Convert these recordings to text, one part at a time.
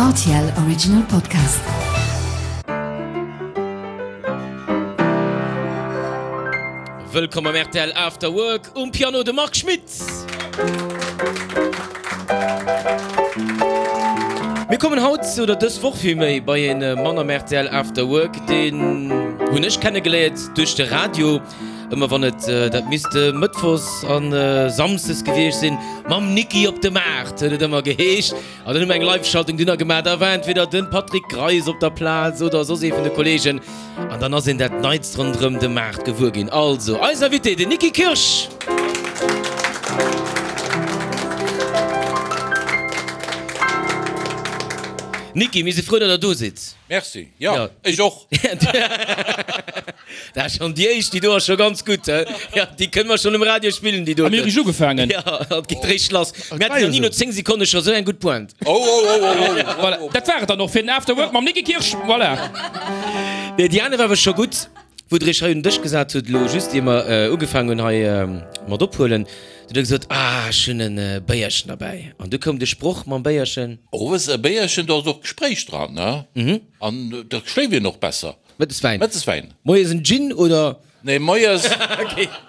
Rtl Original Podcast. Wëllkomm am rtl After Work, um Piano de Marc Schmitz. Mir kommen haut, oder dës Woch villméi, bei een Mann am rtl After Work, deen hunn ech kennegeléiert duerch de Radio. Ëmmer wann et, dat misst Mëttwochs a Samsdes gewiescht sinn, mam Niki op de Maart huet et ëmmer geheescht. An dann hu mer eng Live-Schaltung dunner gemaach. Da war entweder de Patrick Greis op der Plaz oder soss ee vun de Kolleegen. An dann ass een dat Neits ronderëm de Maart gewuer ginn. Also, eis Invité, den Niki Kirsch! Niki, mir si frou, datt der do sidd. Merci, jo, ech och. Dat ass schonn déi éischt, déi do ass scho ganz gutt, he? Jo, déi kënne mer schonn um Radio spillen, déi doten. A mir hu richteg ugefaangen. Jo, et geet réischt lass. Mir haten nach ni no 10 Sekonne scho sou eng gutt Pointe. Oh, oh, oh, oh, oh. Voilà, dat war et dann och fir den After Work mam Niki Kirsch. Voilà. Nee, déi aner war awer scho gutt, wou Der Iech hei un den Dësch gesat hutt, elo just ier mer ugefaangen hunn hei mat ophuelen. Du hutt Der gesot, Ah, ech hunn e Béierchen derbäi. An du koum de Sproch mam Béierchen. Owes e Béierchen, do ass och Gespréich dran, ne? An da schléift een och besser. Mëttes Wäin. Mëttes Wäin. Moies en Gin oder? Nee, moies,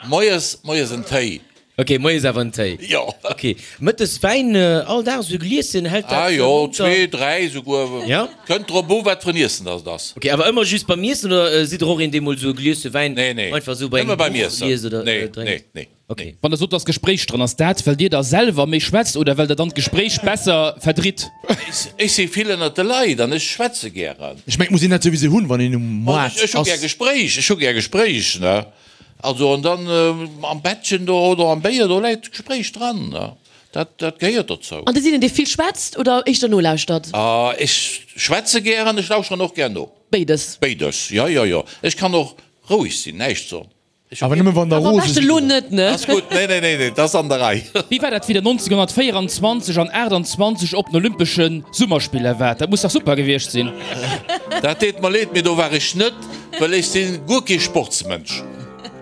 moies, moies en Téi. Ok, moies awer en Téi. Jo. Ok, mëttes Wäin all Dag esou e Glieschen, hält dat Ah jo, monter? zwee, dräi esouguer. Ja? Kënnt drop u wat fir en Iessen dass et ass. Ok, awer ëmmer just beim Iessen oder sidd der och een dee mol esou e Glieschen Wäin Nee, nee, einfach esou bei nëmme engem beim Buch Iessen. liest oder Nee, drénkt? nee, nee. Ok. Wann der sot, dass Gespréich dran ass, dat well dir da selwer méi schwätzt oder well der dann d'Gespréich besser verdritt? Ech si vill ënnert de Leit an ech schwätze gären. Ech mengen, et muss een dat souwisou hunn, wann een um Moart ass. Ech hu gär Gespréich, ech hu gär Gespréich, ne. Also an dann am Bettchen do oder am Béier, do läit d'Gespréich dran, ne. Dat, dat gehéiert dozou. An Dir sidd een, dee vill schwätzt oder éischter nolauschtert? Ech schwätze gären, ech lauschteren och gär no. Béides? Béides, jo, jo, jo. Ech kann och roueg sinn, näischt soen. Awer nëmme wann der Awer am rose beschten sidd. elo net, ne? Ass gutt, nee, nee, nee, nee, dat ass an der Rei. Wéi war dat, wéi der 1924 an 28 op den Olympesche Summerspiller waart? Dat muss dach super gewiescht sinn? Dat deet mer leed, mee do war ech net, well ech si guer kee Sportsmënsch.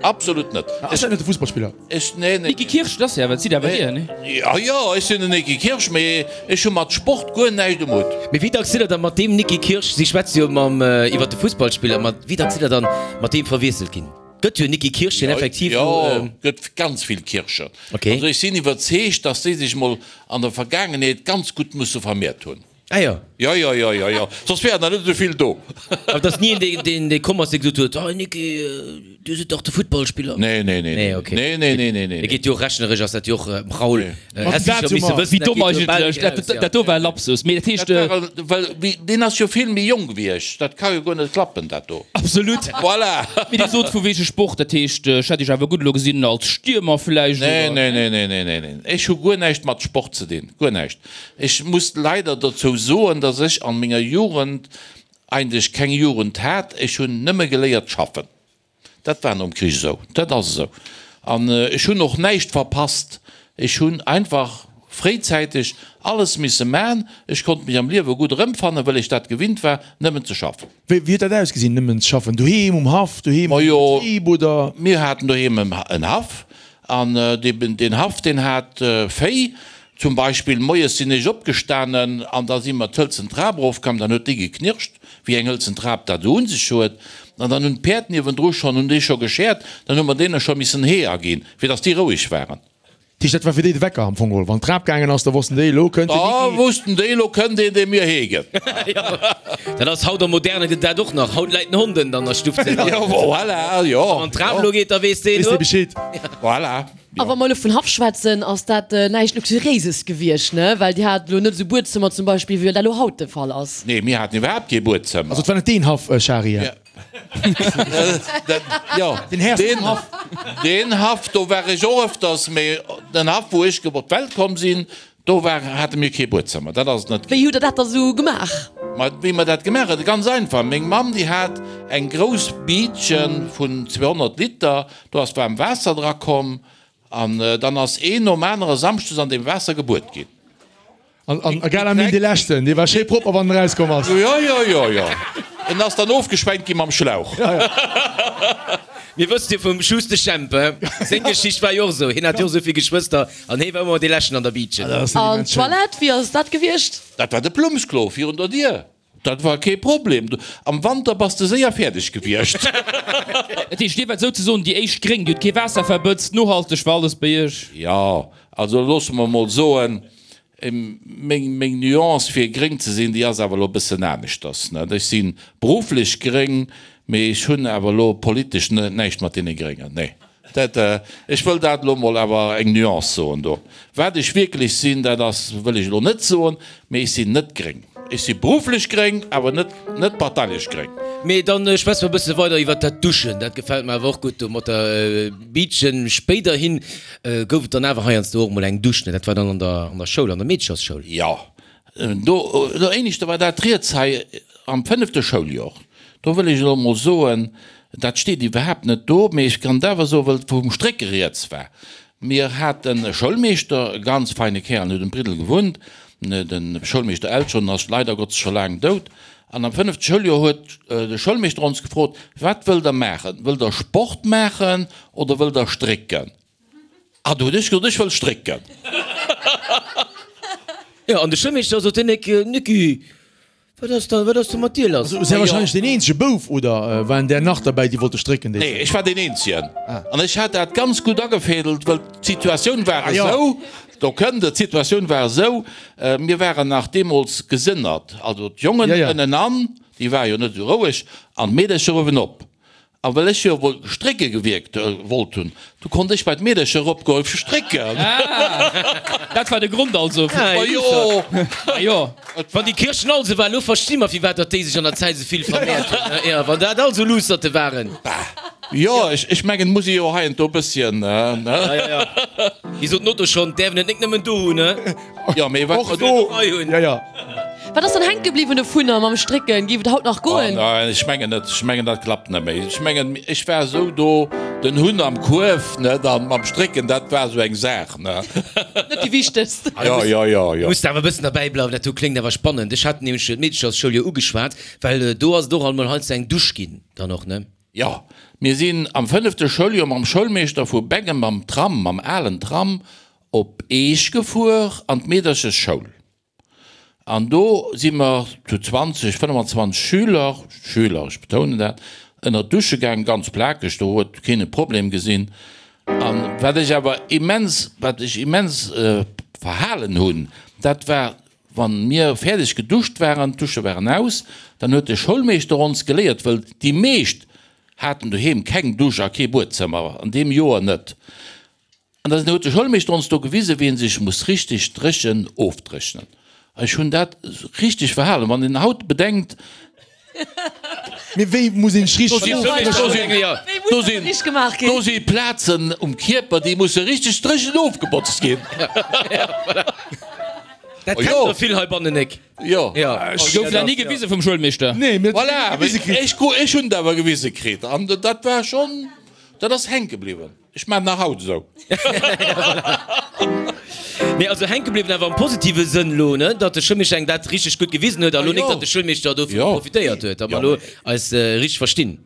Absolut net. Ass dat net de Fussballspiller? Ech, nee, nee. Niki Kirsch, dat ass jo awer, dat sidd awer Dir, nee? Jo, jo, ech sinn den Niki Kirsch, mee ech hu mat Sport guer näischt um Hutt. Mee wéi dacks sidd der da mat deem Niki Kirsch, si schwätze jo mam, iwwer de Fussballspiller, ma wéi dacks sidd der dann mat deem verwiesselt ginn? Gëtt jo Niki Kirsch, deen effektiv Jo, elo. gëtt ganz vill Kirschen. Ok. Also ech sinn iwwerzeegt, dass déi sech mol an der Vergaangenheet ganz gutt musse vermehrt hunn. Ah jo. Jo, jo, jo, jo, jo. Soss wären der net esou vill do. Awer et ass ni een, deen, deen, dee komm ass, dee gesot huet, Hey Niki, du sidd dach de Futtballspiller. Nee, nee, nee, Nee, ok. nee, nee, nee, nee, nee. Et geet jo och rechneresch ass dat jo och, Raoul, häss dat sécher misse hu mer. wëssen, Wéi dat domm geet jo bal eigentlech. eraus, Dat, ja. dat do war e Lapsus. Mee dat heescht. Dat war, well, wéi, deen ass jo vill méi jonk wéi ech. Dat ka jo guer net klappen, dat do. Absolut. Voilà. Mee Dir sot vu wege Sport, dat heescht, ech hätt Iech awer gutt elo gesinn als Stiermer vläicht, Nee, oder? nee, nee, nee, nee, nee, nee. Ech hu guer näischt mat Sport ze dinn. Guer näischt. Ech muss leider dozou soen, dass ech an menger Jugend eigentlech keng Jugend hat. Ech hunn nëmme geléiert schaffen. Dat war nom Krich esou. Dat ass esou. An ech hunn och näischt verpasst. Ech hunn einfach fréizäiteg alles misse man. Ech konnt mech am Liewe gutt erëmfannen, well ech dat gewinnt war, nëmmen ze schaffen. Wéi huet dat ausgesinn, nëmmen ze schaffen? Doheem um Haff, doheem am Majo, Betrib oder? mir haten doheem en Haff an deen Haff, deen hat Véi. Zum Beispill, moies sinn ech opgestanen an da si mer d'hëlzen Trap erofkomm, dann huet déi geknirscht, wéi eng hëlzen Trap dat esou un sech huet. An dann hunn d'Päerd niewendru schonn, hunn déi scho geschäert, dann hu mer deene scho missen Hee aginn, fir datt déi roueg waren. Dat heescht, dat war fir déi de Wecker am Fong geholl. Wann d'Trap gaangen ass, da wossten déi, elo kënnt den Da Niki. wussten déi, elo kënnt een, dee mir Hee gëtt. Dat ass haut am Moderne gëtt dat och nach. Haut läit den Hond ënnen an der Stuff. Jo, voilà, jo. Wann d'Trap elo geet, da weess deen, Weess dee Bescheed. Voilà. A wa mer elo vun Haff schwätzen, ass dat näischt Luxuriéises gewiescht, ne? Well Dir hat elo net esou Buedzëmmer zum Beispill, wéi dat elo haut de Fall ass. Nee, mir haten iwwerhaapt kee Buedzëmmer. Also et war net deen Haff, Shari? Jo, Den Här vum Haff. Deen Haff, do war ech och ëfters, mee den Haff, wou ech op d'Welt komm sinn, do war, hate mir kee Buedzëmmer. Dat ass et net. Wéi hutt Der dat da sou gemaach? Ma wéi mer dat gemaach hunn? Ganz einfach, Meng Mamm, déi hat eng grouss Biitche vun 200 Liter, Do ass waarm Waasser dra komm an dann ass een nom anere samschdes an deem Waasser gebuet ginn. An egal am Mil dee leschten, dee war schéi propper wann en erauskomm ass. Jo, jo, jo, jo. En ass dann ofgeschwenkt gi mam Schlauch. Mir wësst jo vum Schuster Jemp, he? Seng Geschicht war jo och esou, hien hat jo och esou vill Geschwëster an hee war ëmmer dee Leschten an der Biitchen. An d'Toilette, wéi ass dat gewiescht? Dat war de Plummsklo virun der Dier. Dat war kee Problem. Am Wanter bass de séier fäerdeg gewiescht. Dat heescht, Dir waart souzesoen déi éischt Gréng, Dir hutt kee Waasser verbëtzt, nohalteg war alles bei Iech? Jo, also loosse mer emol soen, meng, meng Nuance fir gréng ze sinn, déi ass awer elo e bëssen aneschters, net? Ech si berufflech gréng, mee ech hunn awer elo politesch näischt mat deene Gréngen, nee. Dat, ech wëll dat elo emol awer eng Nuance soen do. Wat ech wierklech sinn, dat ass, wëll ech elo net soen, mee ech sinn net gréng. Ech si berufflech gréng, awer net, net parteilech gréng. Mee dann schwätze mer e bësse weider iwwert dat Duschen. Dat gefält mer awer och gutt do mat der Biitchen. Spéiderhin gouf et dann awer heiansdo och emol eng Dusch, ne? Dat war dann an der, an der Schoul, an der Meedechersschoul. Jo, do, do éineschter war dat riets hei am fënnefte Schouljor. Do wëll ech elo emol soen, dat steet iwwerhaapt net do, mee ech kann et awer soen, wëll et vum Strécke rieds war. Mir haten e Schoulmeeschter, e ganz feine Kär, an huet um Briddel gewunnt, de Schoulmeeschter Eltgen, ass leider Gottes scho laang dout. An am fënnefte Schouljoer huet de Schoulmeeschter ons gefrot, Wat wëllt Der maachen? Wëllt Der Sport maachen oder wëllt Der strécken? Ah, do hunn ech gesot, ech wëll strécken. Jo, an de Schoulmeeschter sot, Nicki, Wat ass da, wat ass do mat dir lass? Also, si wahrscheinlech deen eenzege Bouf, oder waren där nach derbäi, déi wollte strécken déi Nee, ech war deen eenzegen. An ech hat dat ganz gutt agefädelt, wëll d'Situatioun war esou, do kënnt et, d'Situatioun war esou, mir waren nach deemools gesënnert, also d'Jongen ënnenan, déi ware jo net esou roueg, an d'Meedercher uewenop. A well ech jo wuel strécke gewierkt wollt hunn, du konnt ech bei d'Meedercher eropgoe fir strécken. Dat war de Grond also fir. Ma jo! Ma jo! Wann déi Kirchen all sou war, elo versti mer firwat datt déi sech an der Zäit esou vill vermehrt hunn. Jo, wann dat all sou Luusserte waren. Bah, jo, ech mengen, et muss ee jo hei an do e bësschen, ne? Ja, ja, ja. Wéi sot den Otto schonn, d'äerf en et nik nëmmen do hunn, ne? Jo, mee wat Och do! Ja, ja. Wat ass dann hänke bliwwen dovunner mam Strécken? Géif et haut nach goen? Oh nein, ech mengen net. Ech mengen dat klappt net méi. Ech mengen ech war esou do den Hunn am Kuerf, ne, dann mam Strécken, dat war esou eng Saach, ne. Net déi wichtegst. Jo, jo, jo, jo. Muss de awer e bëssen derbäi bleiwen, dat do kléngt awer spannend. Ech hat nämlech d'Meedechersschoul jo ugeschwat, well do ass et och alt mol heiansdo eng Dusch ginn dann och, ne? Jo, mir sinn am fënnefte Schouljoer mam Schoulmeeschter vu Beggen mam Tram, mam alen Tram op Eech gefuer an d'Meederchesschoul. An do si mer zu 20, 25 Schüler, Schüler, ech betounen dat, ënner d'Dusche gaangen, ganz plakeg, do huet keen e Problem gesinn. A wat ech awer immens, wat ech immens verhalen hunn, dat war, wann mir fäerdeg geduscht waren, d'Dusche waren aus, dann huet de Schoulmeeschter ons geléiert, wëll déi meescht haten doheem keng Dusch a kee Buedzëmmer, an deem Joer net, An dann huet de Schoulmeeschter ons do gewisen, wéi een sech muss richteg dréchen ofdréchnen. Ech hunn dat richteg verhalen. Wann een haut bedenkt. Mee wéi muss een sech richteg ofdréchnen? Do sinn, do si Plazen um Kierper, déi musse richteg dréchen ofgebotzt ginn. Dat kennt der vill heibannen, Nick. Jo. Gouf dat ni gewise vum Schoulmeeschter? Nee, mir hunn et ni gewise kritt. Voilà, ech hunn et awer gewise kritt. An dat war schonn, dat ass hänke bliwwen. Ech maan nach haut esou. Nee, also hänke bliwwen awer am positive Sënn lo, ne, datt de Schoulmeeschter engem dat richteg gutt gewisen huet a lo nik, datt de Schoulmeeschter dovun profitéiert huet, datt mer lo eis richteg verstinn.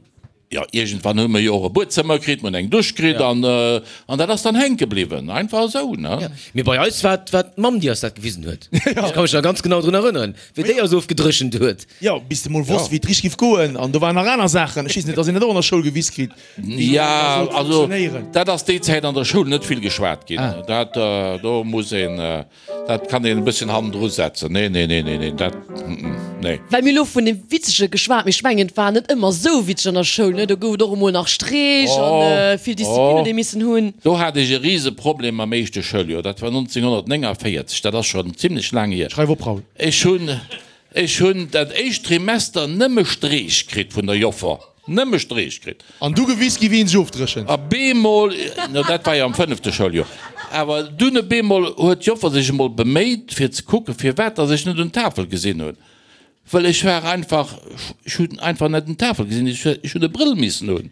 Jo, iergendwann hu mer jo och e Buedzëmmer kritt, mer hunn eng Dusch kritt an an dat ass dann hänke bliwwen, einfach esou, ne. Mee bei eis war et war d'Mamm, déi eis dat gewisen huet. Ech ka mech nach ganz genau drun erënneren, wéi déi eis ofgedréchent huet. Jo, bis de mol wosst, wéi et richteg giff goen. An do waren nach aner Saachen. Ech weess net, datt een dat och an der Schoul gewis kritt. Jo, also dat ass déi Zäit an der Schoul net vill geschwat ginn. Dat do muss een, dat kann een e bësschen hannendru setzen. Nee, nee, nee, nee, nee, dat, nee. Well mir elo vun dem Witzege geschwat, mee ech mengen et war net ëmmer esou witzeg an der Schoul, ne? Do gouf et och emol nach Streech an vill Disziplin huet ee missen hunn. Do hat ech e Riseproblem am éischte Schouljoer, dat war 1949, dat ass schonn zimlech laang hier. Schreif op, Raoul. Ech hunn, ech hunn dat éischt Trimester nëmme Streech kritt vun der Joffer. Nëmme Streech kritt. An du gewis gi wéi een sech ofdréchent. A beemol, no dat war jo am fënnefte Schouljoer, awer dunn e beemol huet d'Joffer sech emol beméit fir ze kucken, firwat datt ech net un d'Tafel gesinn hunn. Wëll ech war einfach, ech hunn einfach net un d'Tafel gesinn, ech hunn e Brëll missen hunn.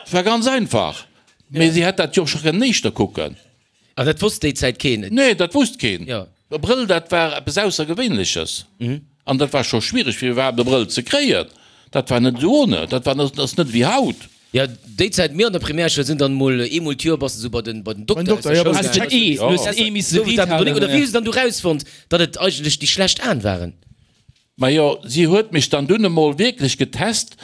Et war ganz einfach. Mee si hätt dat jo och scho kënnen éischter kucken. An dat wosst déi Zäit keen? Nee, dat wosst keen. E Brëll, dat war eppes Aussergewéinleches. An dat war scho schwiereg, fir iwwerhaapt e Brëll ze kréien. Dat war net esou ohne. Dat war, dat ass net ewéi haut. Jo, déi Zäit, mir an der Primärschoul sinn dann emol eemol d'Joer bass de sou bei den, bei den Dokter aus der Schoul gaangen. Oder wéi hu se dann du rausfonnt, datt et eigentlech déi schlecht Aen waren? Majo, si huet mech dann dunn emol wierklech getest,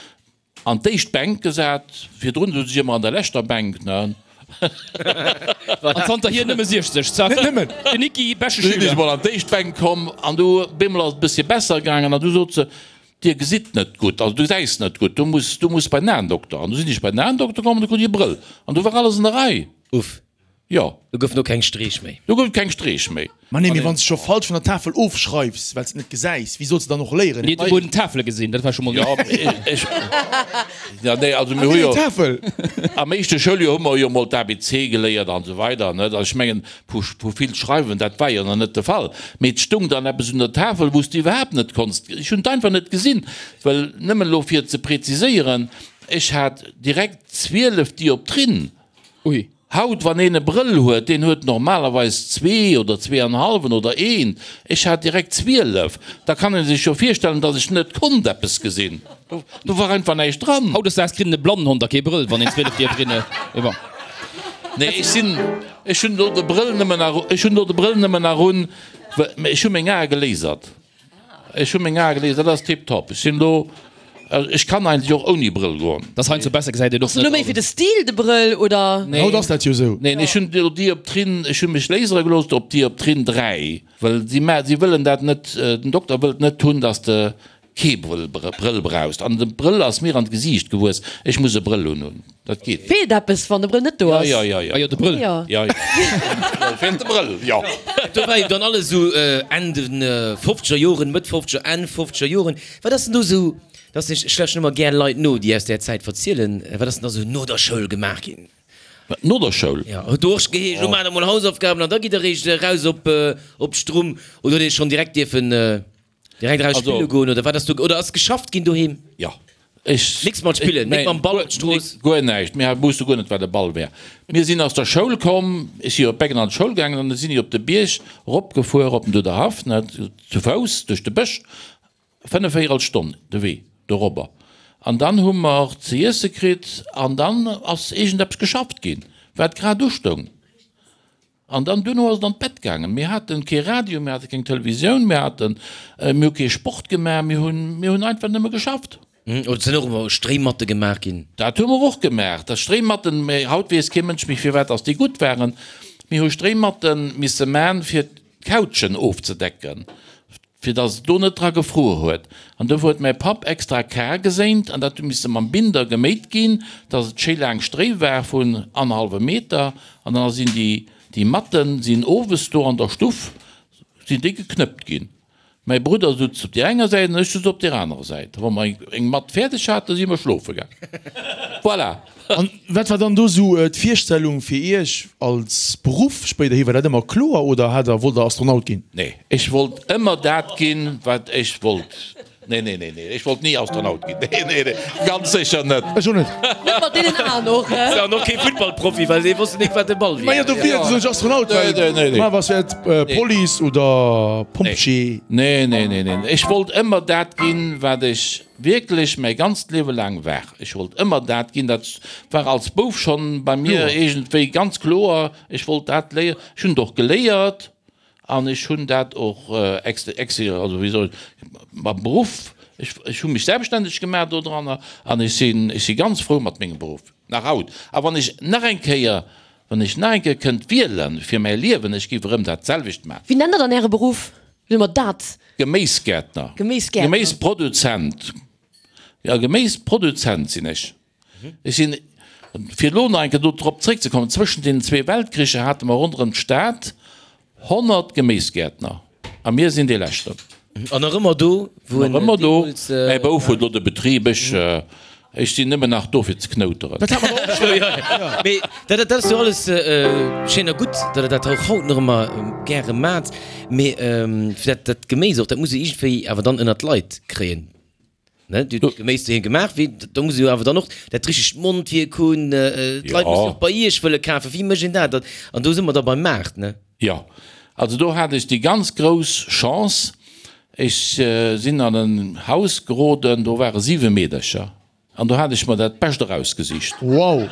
An d'éischt Bänk gesat, virdrun souz ech ëmmer an der leschter Bänk, ne? An zanterhier nëmme 60, zack. Net nëmmen. Den Niki, beschte Du sinn ech Schüler. mol an d'éischt Bänk komm an du bemol ass et e bëssche besser gaangen an du sot se, Dir gesitt net gutt, also du gesäis net gutt, du muss, du muss bei den Aendokter. An du sinn ech bei den Aendokter komm an du krut ech e Brëll an du war alles an der Rei. Uff. Jo. Do goufen och keng Streech méi. Do gouf et keng Streech méi. Ma nee, mee wann s de scho falsch vun der Tafel ofschreifs, well s de net gesäis, wéi solls de dann och léieren? Mir hunn emol Tafele gesinn, dat war scho mol Jo, ech, ja nee, also mir hu jo, am éischte Schouljoer hu mer jo mol d'ABC geléiert an esou weider, net? Also ech mengen, vu, vu vill schreiwen, dat war jo nach net de Fall. Mee et stung dann eppes un der Tafel, wou s de iwwerhaapt net konns, ech hunn et einfach net gesinn, well, nëmmen elo fir et ze präziséieren, ech hat direkt 12 Dioptrien. Ui. Haut, wann een e Brëll huet, deen huet normalerweis zwee oder zweeanhalwen oder een. Ech hat direkt 12. Da kann ee sech jo virstellen, datt ech net konnt eppes gesinn. Do war einfach näischt dran. Hautdesdaags kritt en e Blannenhond a kee Brëll, wann een 12 dierf rinne. Mee bon. Nee, ech sinn, ech hunn elo de Brëll nëmmen nach, ech hunn elo de Brëll nëmmen nach un, well ech hu meng Ae gelasert. Ech hu meng Ae gelies, dat ass tiptop. Ech sinn elo, ech kann eigentlech och ouni Brëll goen. Dass heiansdo besser gesäit een och Ass elo net méi fir de alles. Stil de Brëll oder? Nee. Haut ass dat jo esou. Neen, ech hunn elo Dioptrien, ech hu mech lasere gelooss op Dioptrien 3, well si ma, si wëllen dat net, den Dokter wëllt net hunn, dass de kee Brëll, Brëll brauchst. An de Brëll ass mir an d'Gesiicht gewuess, ech muss e Brëll unhunn. Dat geet. Feelt eppes wann de Brëll net do ass? Jo, jo, jo. Ah jo, de Brëll. Jo. Jo, jo. Feelt de Brëll, jo. Do war jo dann alles esou Enn den fofzeger Joren, Mëtt fofzeger, Enn fofzeger Joren. Wat ass denn do esou, dass ech, ech lauschten ëmmer gär Leit no, déi aus där Zäit verzielen, wat ass denn da esou no der Schoul gemaach ginn? Wat, no der Schoul? Jo, huet do och geheescht, elo maacht der mol Hausaufgaben an da gitt der eréischt eraus op d'Strumm, oder huet ee schonn direkt dierfen Direkt eraus Also- spille goen oder wat ass do oder ass geschafft ginn doheem? Jo. Ech. Nix mat spillen, nik mam Ball op d'Strooss? Guer näischt. Mir wousste guer net, wat e Ball wär. Mir sinn aus der Schoul komm, ech si jo op Beggen an d'Schoul gaangen an da sinn ech op de Bierg eropgefuer, op den Duderhaff, ne, zu Fouss duerch de Bësch, fënnefvéierel Stonn de Wee dorobber. An dann hu mer ze iesse kritt an dann ass iergendeppes geschafft ginn, wat grad ustoung. An dann duerno ass et an d'Bett gaangen. Mir haten kee Radio, mir hate keng Televisioun, mir haten, mir hu kee Sport gemaach, mir hunn, mir hunn einfach nëmme geschafft. Oder et sinn och ëmmer Stréimatte gemaach ginn. Dat hu mer och gemaach, dat Stréimatten, mä haut weess kee Mënsch méi firwat dass déi gutt waren. Mir hu Stréimatte misse man fir d'Couchen ofzedecken. fir dass et do net dra gefruer huet, an dofir huet mäi Papp extra Kar geséint, an dat hu misse mam Binder geméit ginn, dass et schéi laang Stréi war vun annerhallwem Meter, an da sinn déi, déi Matten sinn owes do an der Stuff, sinn déi geknëppt ginn. Mäi Brudder sutz op deer enger Säit an ech sutz op deer anerer Säit. Wa mer eng Matt fäerdeg haten, si mer schlofe gaang. Voilà! An wat war dann do sou d'Virstellung fir Iech als Beruff spéiderhi? War dat ëmmer kloer oder hat der, wollt der Astronaut ginn? Nee, ech wollt ëmmer dat ginn, wat ech wollt. Nee, nee, nee, nee, ech wollt ni Astronaut ginn. Nee, nee, nee, ganz sécher net. Ech och net. Net mat deenen Aen och, he? An och kee Futtballprofi, well dee wosst nik, wat de Ball wier. Majo, dofir sot ech Astronaut, well Nee, nee, nee. normalerweis wär et Police oder Pompjee. Nee, nee, nee, nee, ech wollt ëmmer dat ginn, wat ech wierklech mäi ganzt Liewe laang war. Ech wollt ëmmer dat ginn, dat war als Bouf schonn bei mir iergendwéi ganz kloer, ech wollt dat léieren. Ech hunn et och geléiert an ech hunn dat och ex, ex, also wéi soll ech, mam Beruff, ech, ech hu mech selbststänneg gemaach dodranner an ech sinn, ech si ganz frou mat mengem Beruff, nach haut. A wann ech nach eng Kéier, wann ech nach eng Kéier kënnt wiele fir mäi Liewen, ech géif erëm dat selwecht maachen. Wéi nennt der dann Äre Beruff? Wéi soe mer dat? Geméisgäertner. Geméisgäertner. Geméisproduzent. Jo, Geméisproduzent sinn ech. Ech sinn, fir elo nach eng Kéier do drop zréckzekommen, zwëschent deenen zwee Weltkricher hate mer ronderëm d'Stad 100 Geméisgäertner a mir sinn dee leschten. An nach ëmmer do, wou en Nach ëmmer do. deemools. Mäi Bouf huet elo de Betrib, ech, ech sinn nëmmen nach do fir ze knouteren. Dat hat mer och scho. Mee dat, dat ass jo alles schéin a gutt, datt Der dat och haut nach ëmmer gäre maacht. Mee fir dat, dat Geméis och, dat muss jo iergendwéi awer dann ënnert d'Leit kréien. Ne, Dir hutt Geméis doheem gemaach, wéi, do muss ee jo awer dann och dat richtegt Mondwierk hunn, d'Leit mussen och bei Iech wëlle kafen. Wéi mécht een dat? An do si mer da beim Maart, ne? Jo, also do hat ech déi ganz grouss Chance. Ech sinn an en Haus geroden, do ware siwe Meedercher an do hat ech mer dat Bescht erausgesicht. Wow!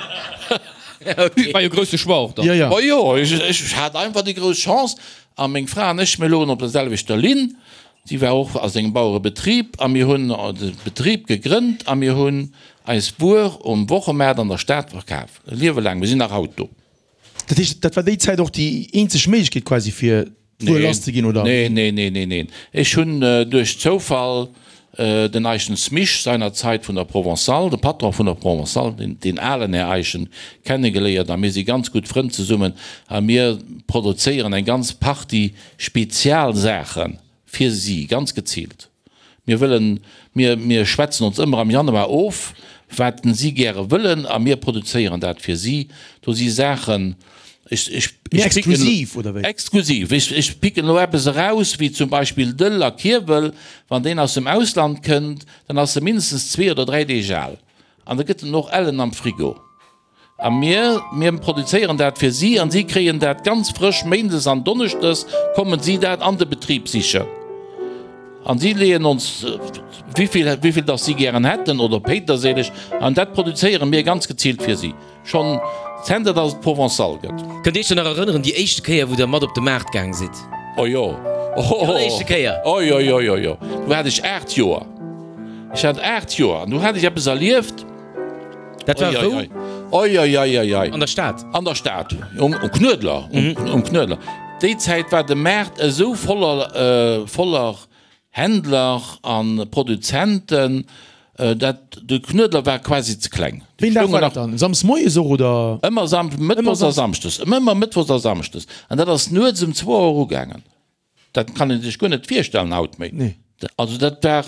War jo grousse Choix och dann. Jo, jo. Ma jo, ech hat einfach déi grouss Chance a meng Fra an ech, mir logen op der selwechter Linn. Si war och a sengem Bauerebetrib a mir hunn de Betrib gegrënnt a mir hunn eis Wuer um Wochemaart an der Stad verkaf, e Liewe laang. Mir sinn nach haut do. Dat heescht, dat war déi Zäit och déi eenzeg Méiglechkeet quasi fir d'Wuer lass ze ginn, oder? Neen, neen, neen, neen, neen. Ech hunn duerch Zoufall den Eischen Smich seinerzeit vun der Provençale, de Patron vun der Provençale, den, deen alen Här Eischen, kennegeléiert a mir si ganz gutt Frënn zesummen a mir produzéieren eng ganz Partie Spezialsaache fir si, ganz geziilt. Mir wëllen, mir, mir schwätzen ons ëmmer am Januar of, wat si gäre wëllen a mir produzéieren dat fir si. Do si Saachen, ech, ech, Méi ech picken, exklusiv, oder wéi? Exklusiv. Ech, ech picken elo eppes eraus, wéi zum Beispill Dëll a Kierwel. Wann deen aus dem Ausland kënnt, dann ass e mindestens zwee oder dräi Deeg al an da gëtt en och ellen am Frigo. A mir, mir produzéieren dat fir si an si kréien dat ganz frësch. Méindes an donneschdes kommen si dat an de Betrib sichen an si leeën ons wéivill, wéivill dass si gären hätten oder Péiterséileg an dat produzéiere mir ganz geziilt fir si, schonn zenter dass et Provençal gëtt. Kënnt Dir Iech dann nach erënneren, déi éischte Kéier wou Der mat op de Maart gaang sidd? Oh jo, Déi alleréischte Kéier? Oh jo, jo, jo, jo, do hat ech 8 Joer. Ech hat 8 Joer an do hat ech eppes erlieft. Dat war wou? Oi, oi, oi, oi, oi. An der Stad? An der Stad, um Knuedler, um Knuedler. Déi Zäit war de Maart esou voller, voller Händler a Produzenten, dat de Knuedler war quasi ze kleng. Wéi een Dag war dat dann? Samsdes moies och, oder? Ëmmer Sam, mëttwochs a samschdes, ëmmer mëttwochs a samschdes. An dat ass nuets um zwou Auer ugaangen. Dat kann ee sech guer net virstellen haut méi. Nee. Also dat war,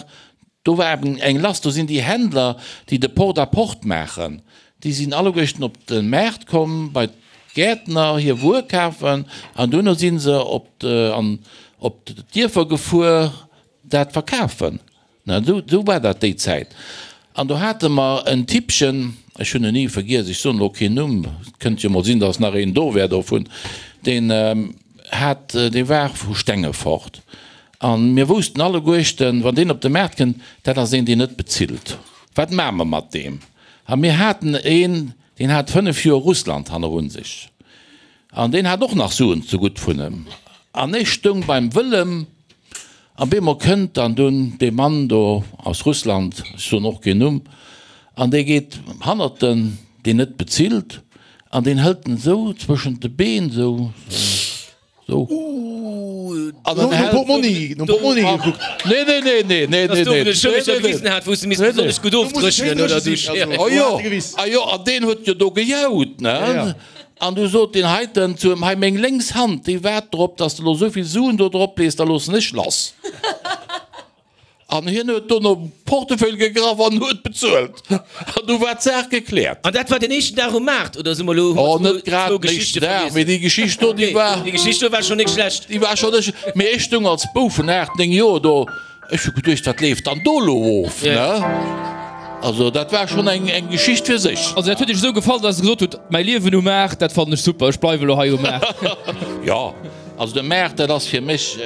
do war eben eng lass. Do sinn déi Händler, déi de Porte-à-porte maachen, déi sinn alleguerten op de Maart komm, bei d'Gäertner hir Wuer kafen an duerno si se op an op d'Dierfer gefuer dat verkafen. Na, esou war dat déi Zäit. An do hate mer en Typchen, ech hunn en ni vergiess, ech soen elo keen Numm, et kënnt jo mol sinn, datt nach een do wär dovun, deen hat, dee war vu Stengefort. A mir woussten alleguerchten, wann deen op de Maart kënnt, dat ass een, deen net bezilt. Wat maache mer mat deem? A mir haten een, deen hat 5 Joer Russland hannerun sech. An deen hat och nach Suen zegutt vun em. An ech stoung beim Wëllem, an bemol kënnt dann dunn dee Mann do aus Russland, ech soen och keen Numm, an dee geet hannert den, deen net bezilt, an deen hëlt en esou zwëschent de Been, esou, esou. An Nom en hält. Portmonni, nom Portmonni gekuckt. Nee, nee, nee, nee, nee, Dass nee, do nee, vun de Schëlleger nee, nee. gewisen hat, wou s de misst Nee, nee. besonnesch gutt Do muss et schéin ofdréchnen oder dréche du. sinn, also. Oh Do jo, hat e gewiss. ah jo, an deen huet jo do gejaut, ne? Ja, ja. An du sot deen heiten zu em, Hei, meng lénks Hand, déi waart drop, dass de lo esou vill Suen do drop lees, da loossen ech lass. An hien huet dono Portefeuille gegraff an huet bezuelt. An du war d'Saach gekläert. An dat war den éischten Dag um Maart, oder si mer elo, hu Oh, mer net grad zwou den Geschichte éischten Dag, vergiess? mee déi Geschicht do, déi war. Déi Geschicht do war schonn net schlecht. Déi war schonn net schlecht. Mee ech stoung als Bouf vun 8, 9 Joer do. Ech hu geduecht, wat leeft dann do elo of, ne? Also dat war schonn eng eng Geschicht fir sech. Also dat huet Iech esou gefall, dass Der gesot hutt, mäi Liewen um Maart, dat fannen ech super, ech bleiwe elo hei um Maart. Jo, also de Maart, dat ass fir mech,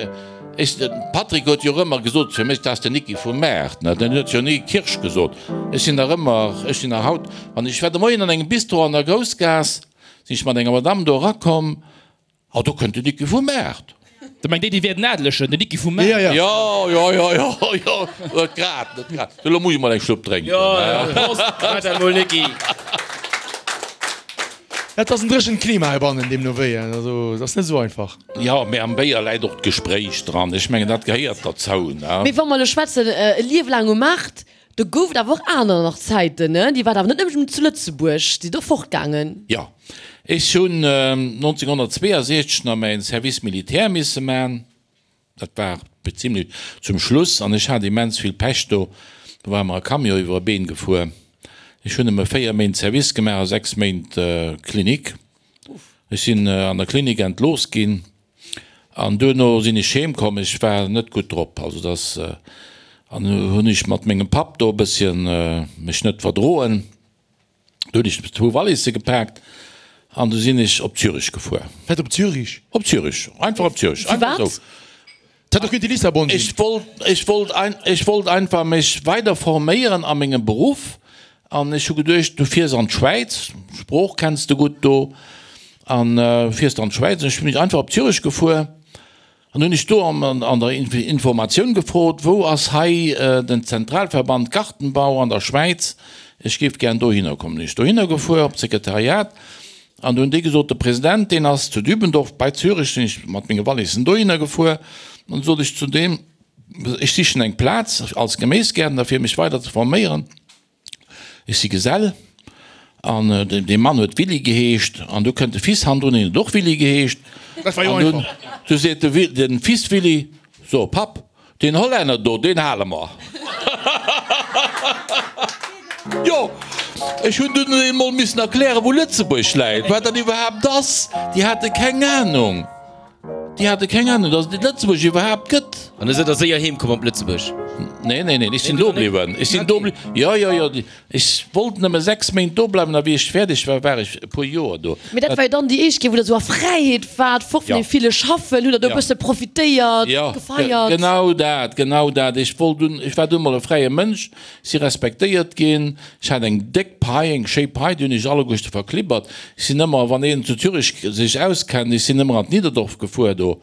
ech, de Patrick huet jo och ëmmer gesot, fir mech, dat ass den Nicki vum Maart, ne? Den huet jo ni Kirsch gesot. Ech sinn nach ëmmer, ech sinn nach haut, wann ech war de Moien an engem Bistro an der Groussgaass, sinn ech mat enger Madame do erakomm, Oh, do kënnt den Niki vum Maart. Der mengt déi, déi wäert en Adelegen, den Niki vum Maart. Ja, ja. Jo, jo, jo, jo, jo, net grad, net grad. Elo muss ech mol eng Schlupp drénken. Jo, jo, Prost, maach dat mol, Niki. Et ass en dréchent Klima heibannen, deemno wéi. Also, et ass net esou einfach. Jo, mee am Béier läit och d'Gespréich dran. Ech mengen, dat gehéiert derzou, ne? Mee wa mer elo schwätzen, e Liewe laang um Maart, Do gouf et awer och aner nach Zäiten, ne? Dir waart awer net nëmmen zu Lëtzebuerg, sidd och fortgaangen. Jo, ech hunn 1962 nach mäin Service militaire misse man. Dat war zimlech zum Schluss an ech hat immens vill Pech do. Do war mer e Camion iwwer e Been gefuer. Ech hunn nëmme 4 Méint Service gemaach a 6 Méint Klinik. Ech sinn an der Klinik entlooss ginn. An duerno sinn ech heem komm, ech war net gutt drop, also dass, an hunn ech mat mengem Papp do e bësschen mech net verdroen. Du hunn ech zwou Walisse gepaakt an du sinn ech op Zürich gefuer. Wat, op Zürich? Op Zürich, einfach op Zürich, einfach Firwat? esou. Dat hätt och kéinte Lissabon sinn. Ech wollt, ech wollt ein, ech wollt einfach mech weider forméieren a mengem Beruff an ech hu geduecht, du fiers an d'Schwäiz, d'Sprooch kenns de gutt do an fiers an d'Schwäiz. An ech sinn einfach op Zürich gefuer an hunn ech do an der Informatioun gefrot, wou ass hei den Zentralverband Gartenbau an der Schwäiz, ech géif gären dohinner kommen. Hunn ech dohinner gefuer op d'Sekretariat an do hunn déi gesot, de President deen ass zu Dübendorf bei Zürich. Sinn ech mat menge Wallissen dohinner gefuer an sot ech zu deem, ech sichen eng Plaz als Geméisgäertner fir mech weider ze forméieren. Ech si Gesell an dee Mann huet Willy geheescht an du kënnt de Fils hannendrun, deen huet och Willy geheescht. Dat war jo einfach. Du seet de Fils Willy, So Papp, deen Hollänner do, deen hale mer. Jo, ech hunn dunn emol missen erklären, wou Lëtzebuerg läit, wat dat iwwerhaapt ass. Déi hate keng Anung. Déi hate keng Ahnung, dass et Lëtzebuerg iwwerhaapt gëtt. An da sidd der séier heem komm op Lëtzebuerg? Nee, nee, nee, ech sinn do bliwwen. Ech sinn do bliwwen. Jo, jo, jo. Ech wollt nëmme 6 Méint do bleiwen a wéi ech fäerdeg war, war ech e puer Joer do. Mee dat war jo dann déi éischt Kéier, wou der esou a Fräiheet waart, fort vun deem ville Schaffen. Hutt der do e bësse profitéiert, gefeiert? Jo, genau dat, genau dat. Ech wollt dunn, ech war dunn mol e fräie Mënsch. Si respektéiert ginn. Ech hat eng déck Pai, eng schéi Pai, déi hunn ech alleguerte verklibbert. Ech sinn ëmmer, wann een zu Zürich sech auskennt, ech sinn ëmmer an d'Niederdorf gefuer do.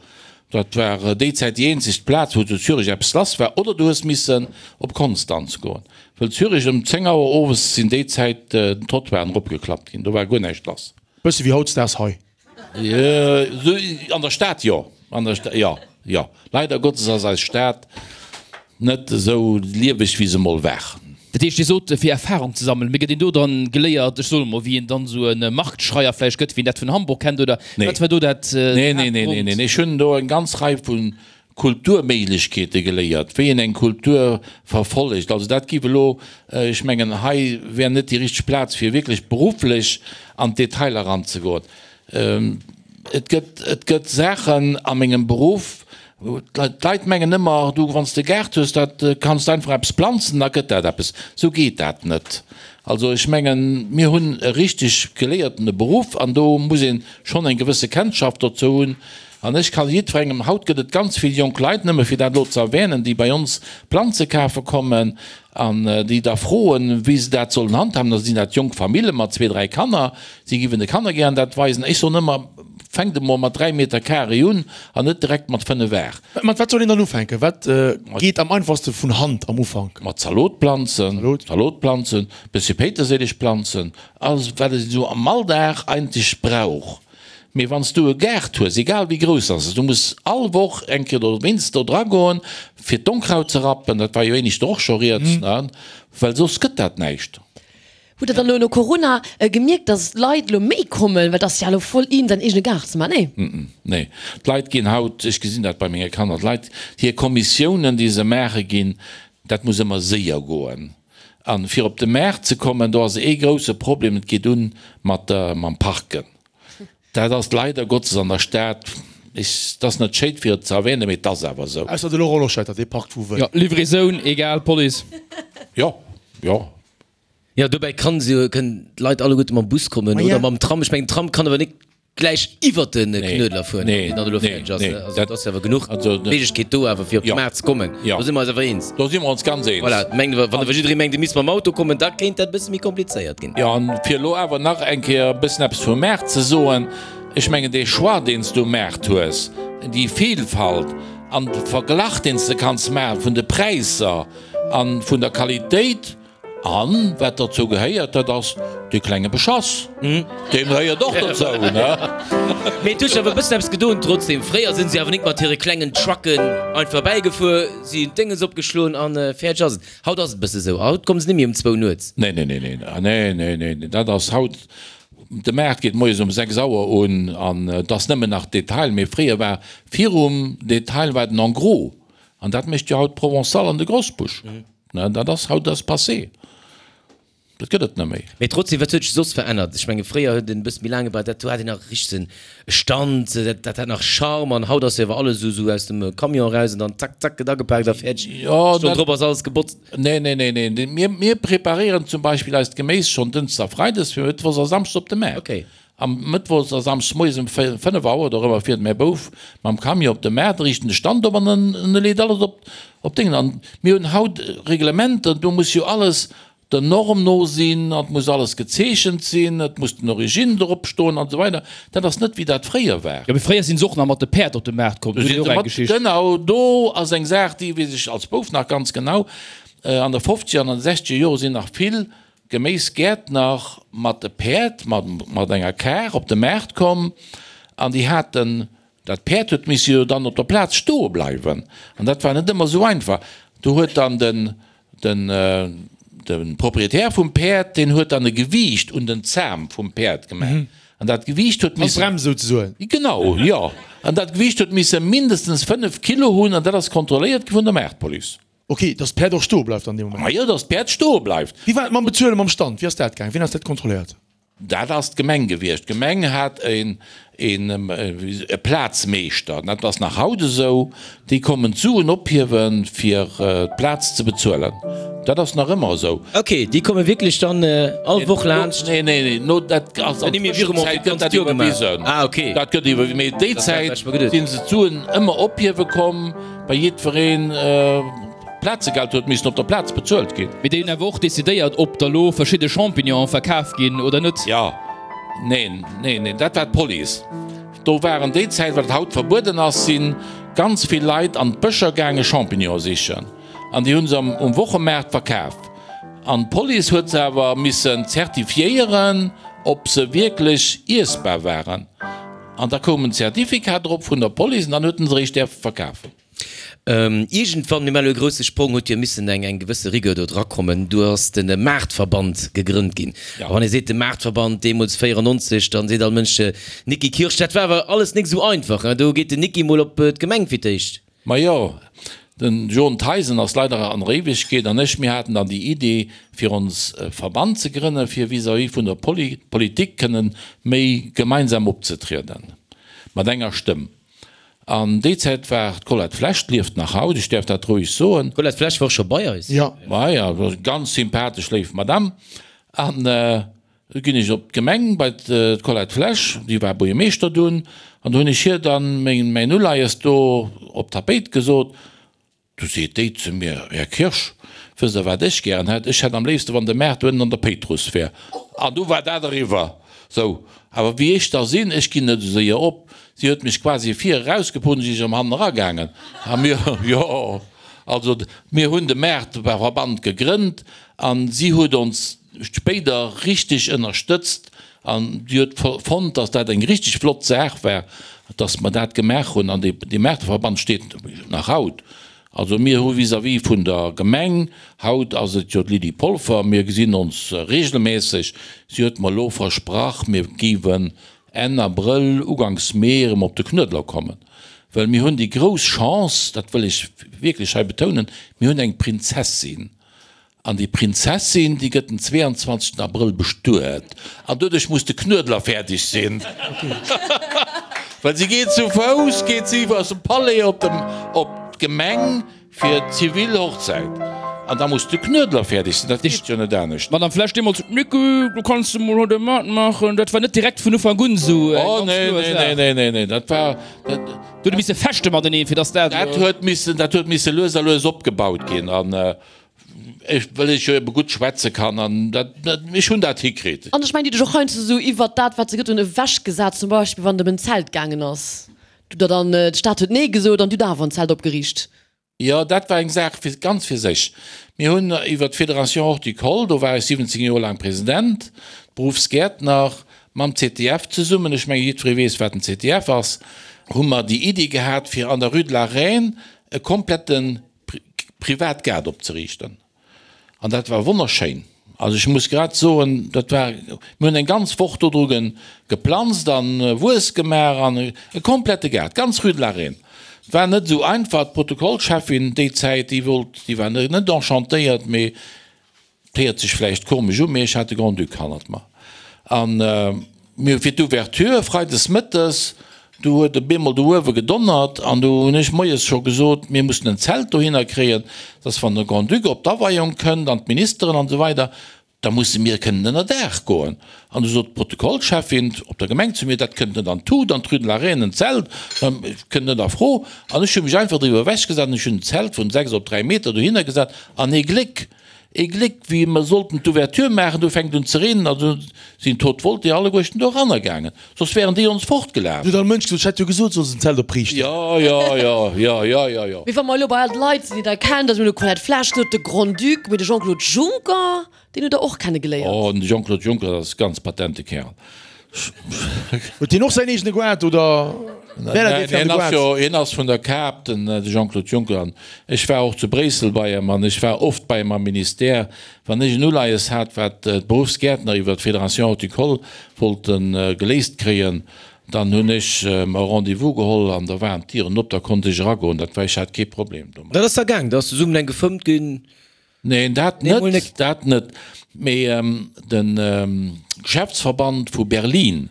Dat war déi Zäit déi eenzeg Plaz, wou zu Zürich eppes lass war. Oder du hues missen op Konstanz goen, wëll Zürich ëm 10 Auer owes sinn déi Zäit d'Trottoiren eropgeklappt ginn, do war guer näischt lass. Bësse wéi hautdesdaags hei. An der Stad jo, an der Stad jo, jo. Leider Gottes ass eis Stad net esou lieweg wéi se mol war. Dat heescht, Dir sot fir Erfahrung ze sammelen, mee gëtt een do dann geléiert, ech soen emol, wéi een dann esou e Marktschreier vläicht gëtt, wéi een dat vun Hamburg kennt, oder wat war do dat Nee, nee, nee, nee, nee. Ech hunn do eng ganz Rei vu Kulturméiglechkeete geléiert, wéi een eng Kultur verfollegt. Also dat giff elo, ech mengen, hei wär net déi richteg Plaz fir wierklech berufflech an d'Detailer eranzegoen. Et gëtt, et gëtt Saachen a mengem Beruff, d'Leit mengen ëmmer, du wann s de e Gaart hues, dat kanns de einfach eppes planzen, da gëtt dat eppes. Esou geet dat net. Also ech mengen, mir hunn e richteg geléiertene Beruff an do muss ee schonn eng gewësse Kennschaft dozou hunn. An ech kann jiddwerengem, haut gëtt et ganz vill jonk Leit, nëmme fir dat elo ze erwänen, déi bei ons Planze kafe kommen an déi da froen, wéi se dat sollen handhaben. Da sinn dat jonk Famille mat zwee, dräi Kanner, si giffen de Kanner gären dat weisen. Ech soen ëmmer, Fänkt emol mat 3 Meter carré un an net direkt mat 5 Ar. Mat wat soll een dann ufänken? Wat geet am einfachste vun Hand am Ufank? Mat Zalotplanzen, Zalotplanzen, bëssche Péiterséilegplanzen, alles wat een esou am Alldag eigentlech brauch. Mee wann s du e Gaart hues, egal wéi grouss ass, du muss all Woch eng Kéier oder wéinst do dra goen, fir d'Onkraut ze rappen, dat war jo éineschter och scho rieds, ne, well soss gëtt dat näischt. Hutt der dann elo no Corona gemierkt, dass d'Leit elo méi kommen, well et ass jo elo voll in, säin eegene Gaart ze maachen, nee? Nee, d'Leit ginn haut, ech gesinn dat bei menge Kanner, d'Leit, hir Kommissiounen, déi se maache ginn, dat muss ëmmer séier goen. A fir op de Maart ze kommen, do ass ee grousse Problem, et geet un mat der, mam Parken. Dat ass leider Gottes an der Stad, ech, et ass net schéin fir et ze erwähnen, mee et ass awer esou. Ausser de Laurent Loschetter, dee parkt wou wëll. Jo, Livraison, egal, Police. Jo, jo. Jo, dobäi kann se jo, kënnen d'Leit alleguerte mam Bus kommen oder mam Tram. Ech mengen, den Tram kann awer net gläich iwwert de Knuedler fueren, wann deen dann elo fäerdeg ass. Also et ass jo awer genuch Méiglechkeet do awer fir op de Maart ze kommen. Do si mer eis awer eens. Do si mer ons ganz eens. Voilà, mengen, wann awer jidderee mengt, e misst mam Auto kommen, da kéint dat e bësse méi komplizéiert ginn. Jo, an fir elo awer nach eng Kéier e bëssen eppes vum Maart ze soen, Ech mengen, dee Choix, deen s du um Maart hues, déi Vielfalt an de Verglach, deen s de kanns maache vun de Präisser a vun der Qualitéit, An wat dozou gehéiert, dat ass dee klenge Beschass. Dee gehéiert och dozou, ne? Mee et huet sech awer e bëssen eppes gedoen trotzdem. Fréier sinn se awer nik mat hire klengen Trucken einfach bäigefuer, si hunn d'Dénges opgeschloen an fäerdeg ass et. Haut ass et e bësse sou, haut komme se net méi um zwou nuets. Nee, nee, nee, nee, nee, nee, nee, nee, dat ass haut, de Maart geet moies um 6 Auer un an et ass nëmmen nach Detail. Mee fréier war virum Detail war den En gros an dat mécht jo haut d'Provençale an de Grosbusch. Ne, dat ass haut ass passé. Dat gëtt et net méi. Mee trotzdem, wat huet sech soss verännert? Ech menge fréier huet en e bësse méi laang gebraucht, dat do hat een nach richteg en Stand, dat dat hat nach Charme an haut ass jo awer alles esou esou aus dem Camion eraus an dann zack zack gëtt agepaakt a fäerdeg. Jo, Stonn dat. drop ass alles gebotzt. Nee, nee, nee, nee. Mir, mir preparéieren zum Beispill eist Geméis schonn Dënschdes a Freides fir Mëttwochs a Samschdes op de Maart. Okay. Am Mëttwochs a Samschdes moies um 5 Auer oder ëmmer fiert mäi Bouf mam Camion op de Maart, riicht en de Stand op an en e leet alles op op Déngen. An mir hunn haut Reglementer, do muss jo alles der Norm no sinn, an et muss alles gezeechent sinn, et muss den Origine drop stoen an esou weider. Dat ass net wéi dat fréier war. Jo, mee fréier sinn se och nach mat de Päerd op de Maart komm, do hunn ech och eng Geschicht. Genau, do ass eng Saach, déi weess ech als Bouf nach ganz genau, An de fofzeger an an de sechzeger Jore sinn nach vill Geméisgäertner mat de Päerd, mat enger Kar op de Maart komm an déi haten, dat Päerd huet misse jo dann op der Plaz stoe bleiwen an dat war net ëmmer esou einfach. Do huet dann den, den, de Proprietär vum Päerd, deen huet dann e Gewiicht un den Zam vum Päerd gemaach an dat Gewiicht huet missen. Als Brems souzesoen. Genau, jo. An dat Gewiicht huet misse mindestens 5 Kilo hunn an dat ass kontrolléiert gi vun der Maartpolice. Ok, dass d'Päerd och stoe bleift an deem Moment. Majo, dass d'Päerd stoe bleift. Wéi war et mam Bezuelen, mam Stand? Wéi ass dat gaangen? Wien ass dat kontrolléiert? Dat ass d'Gemeng gewiescht. D'Gemeng hat een e Plazmeeschter, dat ass nach haut esou, déi kommen d'Suen ophiewen, fir d'Plaz ze bezuelen. Dat ass nach ëmmer esou. Ok, déi komme wierklech dann all Woch laanscht? Nee, nee, nee, no, dat ass an der Tëschenzäit gëtt dat iwwerwisen. Ah, ok. Dat gëtt iwwerwisen, mee déi Zäit si se d'Suen ëmmer ophiewe komm. Bei jiddwereen Plazegeld huet missen op der Plaz bezuelt ginn. Mee déi hunn awer och decidéiert, ob da lo verschidde Champignonen verkaf ginn oder net. Jo, neen, neen, neen, dat war d'Police. Do waren déi Zäit, wat haut verbueden ass, si ganz vill Leit an d'Bëscher gaange Champignonen sichen an déi hu se um Wochemaart verkaf. An d'Police huet se awer missen zertifiéieren, ob se wierklech iessbar waren. An da koum en Zertifikat drop vun der Police an dann huet en se eréischt däerfe verkafen. Iergendwann, mir maachen elo e grousse Sprong, huet jo missen eng eng gewësse Rigueur do drakommen. Du ass de Maartverband gegrënnt ginn. A wann ee seet de Maartverband, deemools 94, dann seet all Mënsch Niki Kirsch. Dat war awer alles nik esou einfach, hein? Do geet den Niki mol op d'Gemeng fir d'éischt. Majo, den John Theisen ass leider an der Éiwegkeet an ech, mir haten dann déi Idee fir ons e Verband ze grënnen, fir vis-à-vis vun der Politik kënnen méi gemeinsam opzetrieden, mat enger Stëmm. An déi Zäit war d'Colette Flesch, d'lieft nach haut, ech däerf dat roueg soen. D'Colette Flesch war och scho bei eis. Jo. Maja, ganz sympathesch, léif Madame. An Du ginn ech op d'Gemeng bei d'Colette Flesch, déi war Buergermeeschter dunn, an do hunn ech hir dann mäin Uleies do op d'Tapéit gesot. Du seet déi zu mir, Här Kirsch, wësst Der wat ech gären hätt? Ech hätt am léifste wann de Maart do ënnen an der Péitruss wär. An du war dat eriwwer. Sou, awer wéi ech da sinn, ech ginn net esou séier op. Si huet mech quasi vir erausgeput an si ass erëm hannen eragaangen. A mir, jo, also mir hunn de Maartverband gegrënnt an si huet ons spéider richteg ënnerstëtzt an si huet fonnt, dass dat eng richteg flott Saach war, dass mer dat gemaach hunn. An dee Maarteverband steet nach haut. Also mir hu vis-à-vis vun der Gemeng, haut ass et jo d'Lydie Polfer, mir gesinn ons regelmässeg, si huet mer elo versprach, mir géiwen Enn Abrëll, uganks Mee erëm op de Knuedler kommen, well mir hunn déi grouss Chance, dat wëll ech wierklech hei betounen, mir hunn eng Prinzessin. An déi Prinzessin, déi gëtt den 22 Abrëll bestuet. An doduerch muss de Knuedler fäerdeg sinn. Well si geet zu Fouss, geet si aus dem Palais op dem, op d'Gemeng fir d'zivil Hochzäit. An da muss de Knuedler fäerdeg sinn, dat geet jo net anescht. D'Madame Flesch deemools, Nicky, du kanns de mol haut e matmaachen. Dat war net direkt vun Ufank un esou eng Oh, ganz nee, kloer nee, Saach. nee, nee, nee, nee, dat war, dat. Do huet e misse fechte mateneen, fir dass dat. Dat huet missen, dat huet misse lues a lues opgebaut ginn. An ech, well ech jo ebe gutt schwätze kann, an dat, dat, ech hunn dat hikritt. An ech mengen, déi huet dech och heiansdo esou iwwert dat, wat se gëtt hunn, ewechgesat. Zum Beispill, wann et ëm en Zelt gaangen ass. Du der dann, d'Stad huet Nee gesot an du hutt awer en Zelt opgeriicht. Jo, dat war eng Saach fir, ganz fir sech. Mir hunn iwwer d'Fédération Horticole, do war ech 17 Joer laang President, Berufsgäertner, mam ZDF zesummen, ech menge jiddweree weess, wat den ZDF ass, hu mer déi Iddi gehat, fir an der Rue de la Reine e komplette Privatgaart opzeriichten. An dat war wonnerschéin. Also ech muss grad soen, dat war, mir hunn eng ganz Woch do dru geplanzt an Wues gemaach an e komplette Gaart, ganz Rue de la Reine. Et war net esou einfach. D'Protokollcheffin déi Zäit, déi wollt, déi war net enchantéiert, mee et héiert sech vläicht komesch u, mee ech hat de Grand-Duc hannert mer. An mir hu fir d'Ouverture freides mëttes, du huet e bemol do uewe gedonnert an du hunn ech moies scho gesot, mir mussen en Zelt dohinner kréien, dass wann de Grand-Duc op d'Aweiung kënnt an d'Ministeren an esou weider. Da musse mir kënnen ënner Daach goen. An du sot d'Protokollcheffin op der Gemeng zu mir, dat kënnt net an d'Tut, an d'Rue de la Reine en Zelt, kënnt net a Fro. An ech hu mech einfach driwwer ewechgesat an ech hunn en Zelt vun 6 op 3 Meter dohinner gesat. An ee Gléck, ee Gléck, wéi mer sollten d'Ouverture maachen, du fänkt un ze reenen a du sinn d'Haute Volté alleguerten do eranner gaangen, soss wären déi ons fortgelaf. Du huet all Mënsch gesot, ech hätt jo gesot, solls en Zelt opriichten. Jo, jo, jo, jo, jo, jo, jo. Mee wa mer elo bei all d'Leit sinn, déi Der kennt, also mir hunn elo d'Colette Flesch gesot, de Grand-Duc, mee de Jean-Claude Juncker, deen hutt Der och kenne geléiert. Oh, den Jean-Claude Juncker, dat ass e ganz patente Kerl. Huet deen och säin eegene Goart oder wär dat ee fir an de Goart? Hien ass vun der Kap, den Jean-Claude Juncker. An ech war och zu Bréissel bei em an ech war oft bei em am Ministère, wann ech en Uleies hat, wat d'Beruffsgäertner iwwer d'Fédération Horticole wollte geléist kréien, dann hunn ech mer e Rendez-vous geholl an da waren d'Dieren op, da konnt ech eragoen. Dat war, ech hat kee Problem domat. Dat ass da gaang, da ass zesummen eng gefëmmt ginn? Neen, dat net, dat net. Mee de Geschäftsverband vu Berlin,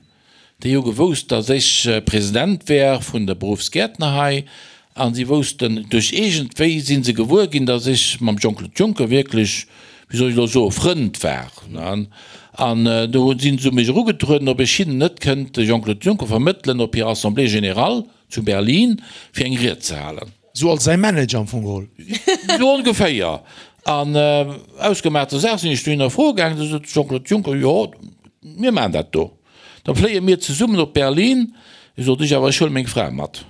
déi hu gewousst, datt ech President wär vun de Beruffsgäertner hei, a si woussten, duerch iergendwéi si se gewuer ginn, datt ech mam Jean-Claude Juncker wierklech, wéi soll ech elo soen, Frënd war. An do si se u mech erugetrueden, ob ech hinnen net kënnt de Jean-Claude Juncker vermëttelen op hir Assemblée générale zu Berlin, fir eng Ried ze halen. Sou als säi Manager am Fong geholl. Sou ongeféier. An ausgemaachter Saach sinn ech dohinner froe gaangen. Du sot de Jean-Claude Juncker, Jo, mir maachen dat do. Da fléie mir zesummen op Berlin. Du sot ech, Awer ech huele meng Fra mat.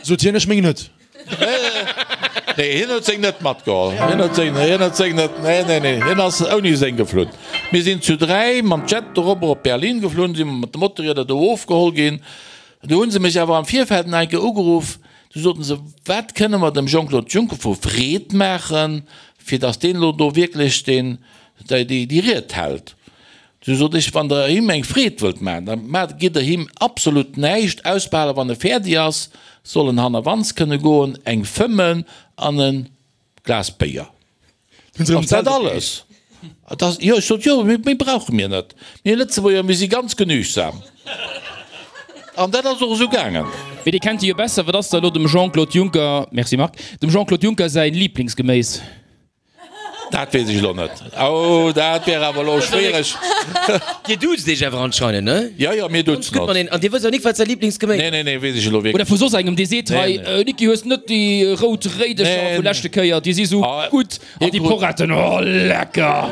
Sot hien, Ech meng net. Nee, hien huet seng net matgeholl. Hien huet seng, hien huet seng net, nee, nee, nee, hien ass ouni seng geflunn. Mir sinn zu 3 mam Jet dorobber op Berlin geflunn, si mer mat de Motorrieder do ofgeholl ginn. Du hunn se mech awer am Virfeld nach eng Kéier ugeruff, du soten se, wat kënne mer dem Jean-Claude Juncker vu Freed maachen, fir datt deen elo do wierklech deen, déi, déi Ried hält. Du sot ech, wann der him eng Freed wëllt maachen, da maacht, gitt der him absolut näischt, ausbehale wann e fäerdeg ass, soll en hannerwands kënne goen, eng fëmmen an e Glas Béier. Ass dat alles? Jo, ech sot, jo, méi brauche mir net. Mir Lëtzebuerger, mir si ganz genügsam. An dat ass och esou gaangen. Mee Dir kennt e jo besser. Wat ass da elo dem Jean-Claude Juncker, merci Marc, dem Jean-Claude Juncker säi Liblingsgeméis? Dat weess ech elo net. Oh, dat wär awer elo schwiereg. Dir duzt iech awer anscheinend, ne? Jo, jo, mir duzen ons. An Dir wësst awer nik, wat säi Liblingsgeméis ass? Nee, nee, nee, weess ech elo wierklech. Oder vu soss engem, dee seet, Hei, Niki, hues net déi rout Réidecher vu leschte Kéier, déi si sou gutt, an déi Poretten, oh, lecker!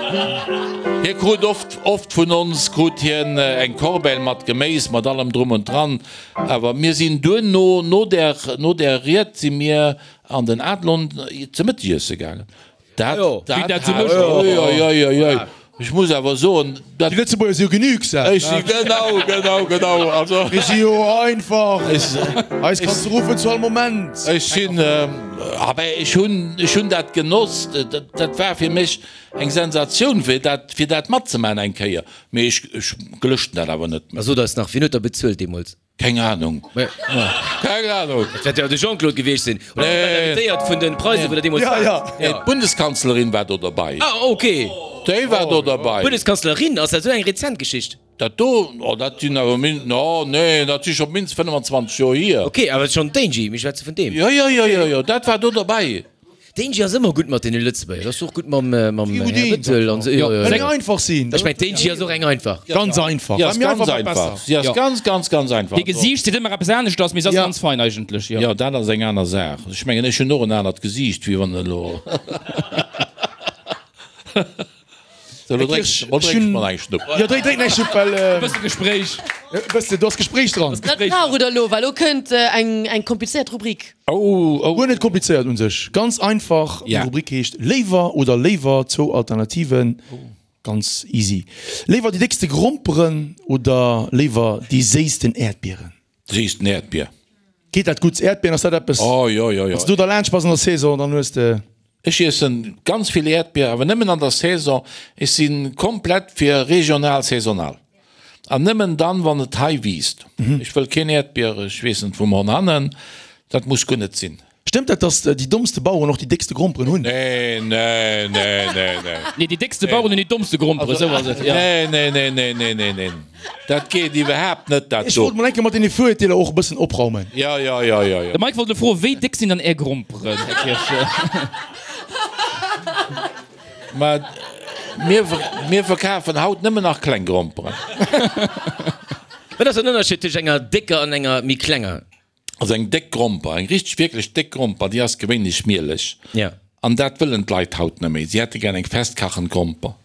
Hie krut oft, oft vun ons krut hien eng Corbeille mat Geméis, mat allem drum und dran. Awer mir sinn duerno, no där, no där Ried si mir An den Adlon ze Mëttegiesse gaangen. Dat, dat, dat oi, oi, oi, oi, oi. Ech muss awer soen, dat. Déi Lëtzebuerger si jo genügsam. Ech si, genau, genau, genau. Also. Mir si jo einfach. Eis kanns de ruffen zu all Moment. Ech sinn, ah ben, ech hunn, ech hunn dat genoss. Dat, dat war fir mech eng Sensatioun, fir dat, fir dat matzemaachen eng Kéier. Mee ech, ech gelëschten dat awer net méi. A sot eis nach, wien huet der bezuelt deemools? Keng Ahnung. Keng Ahnung. Et wäert jo de Jean-Claude gewiescht sinn. Oder Dir waart invitéiert vun den Preisen, wou der deemools waart. Ja, ja. D'Bundeskanzlerin war do derbei. Ah, ok. Déi war do derbei. D'Bundeskanzlerin, ass dat esou eng rezent Geschicht? Dat do, oh, dat sinn awer min, oh, nee, dat si scho mindestens 25 Joer hier. Ok, awer schonn d'Angie, mir schwätze vun deem. Jo, jo, jo, jo, jo, dat war do derbei. D'Angie ass ëmmer gutt mat deene Lëtzebuerger. Ass och gutt mam Här Bettel an esou. Jo, jo. Eng einfach sinn. Ech mengen, d'Angie ass och eng einfach. Ganz einfach. Si ass ganz einfach. Si ass ganz, ganz, ganz einfach. Hir Gesiicht seet ëmmer eppes aneschters, mee se ass ganz fein eigentlech, jo. Jo, dat ass eng aner Saach. Ech mengen, ech hunn och en anert Gesiicht, wéi wann elo. Sou, elo drénks elo drénks mol eng Schnupp. Jo, drénk drénk eng Schnupp, well. E bësse Gespréich. E bësse, do ass Gespréich dran. Dat brauch et elo, well elo kënnt eng eng komplizéiert Rubrik. Oh, oh. Guer net komplizéiert un sech, ganz einfach. Déi Rubrik heescht Léiwer oder léiwer, zwou Alternativen, ganz easy. Léiwer déi déckste Gromperen oder léiwer déi séissten Äerdbieren? Séissten Äerdbier. Geet dat gutt? Äerdbieren, ass dat eppes? Oh, jo, jo, jo. Wann s du derlaanscht bass an der Saison, dann hues de. Ech iessen ganz vill Äerdbier, awer nëmmen an der Saison. Ech si komplett fir regional, saisonal. An nëmmen dann, wann et hei wiisst. Ech wëll keen Äerdbier, ech weess net, vum Honhannen. Dat muss guer net sinn. Stëmmt dat, dass déi dommste Baueren och déi déckste Gromperen hunn? Nee, nee, nee, nee, nee. Nee, déi déckste Baueren hunn déi dommste Gromperen, esou ass et, jo. Nee, nee, nee, nee, nee, nee, nee. Dat geet iwwerhaapt net, dat Ech do. wollt mol eng Kéier mat deene Virurteeler och e bëssen opraumen. Jo, jo, jo, jo, jo. De Mike wollt elo froen, wéi déck sinn dann Är Gromperen, Här Kirsch? Mä. Mir, mir verkafen haut nëmmen nach kleng Gromperen. Wat ass den Ënnerscheed tëscht enger décker an enger méi klenger? Also eng déck Gromper, eng richteg wierklech déck Gromper, déi ass gewéinlech mieleg. Ja. An dat wëllen d'Leit haut net méi. Si hätte gär eng festkachend Gromper.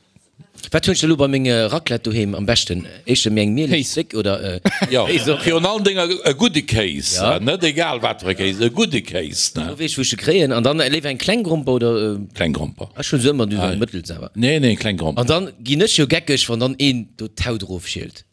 Wat hunn ech da lo bei menge Raclette doheem am beschten? Éischter méi eng mieleg, déck oder Jo, Kéis och? virun allen Dénger e gudde Kéis, Ja. net egal wat fir e Kéis, e gudde Kéis, ne? Lo weess ech wou ech se kréien. An dann léiwer eng kleng Gromper oder? Kleng Gromper. Ech hunn se ëmmer du eng mëttels awer. Nee, nee, kleng Gromper. An dann ginn ech jo geckeg wann dann een do d'Haut erofschielt.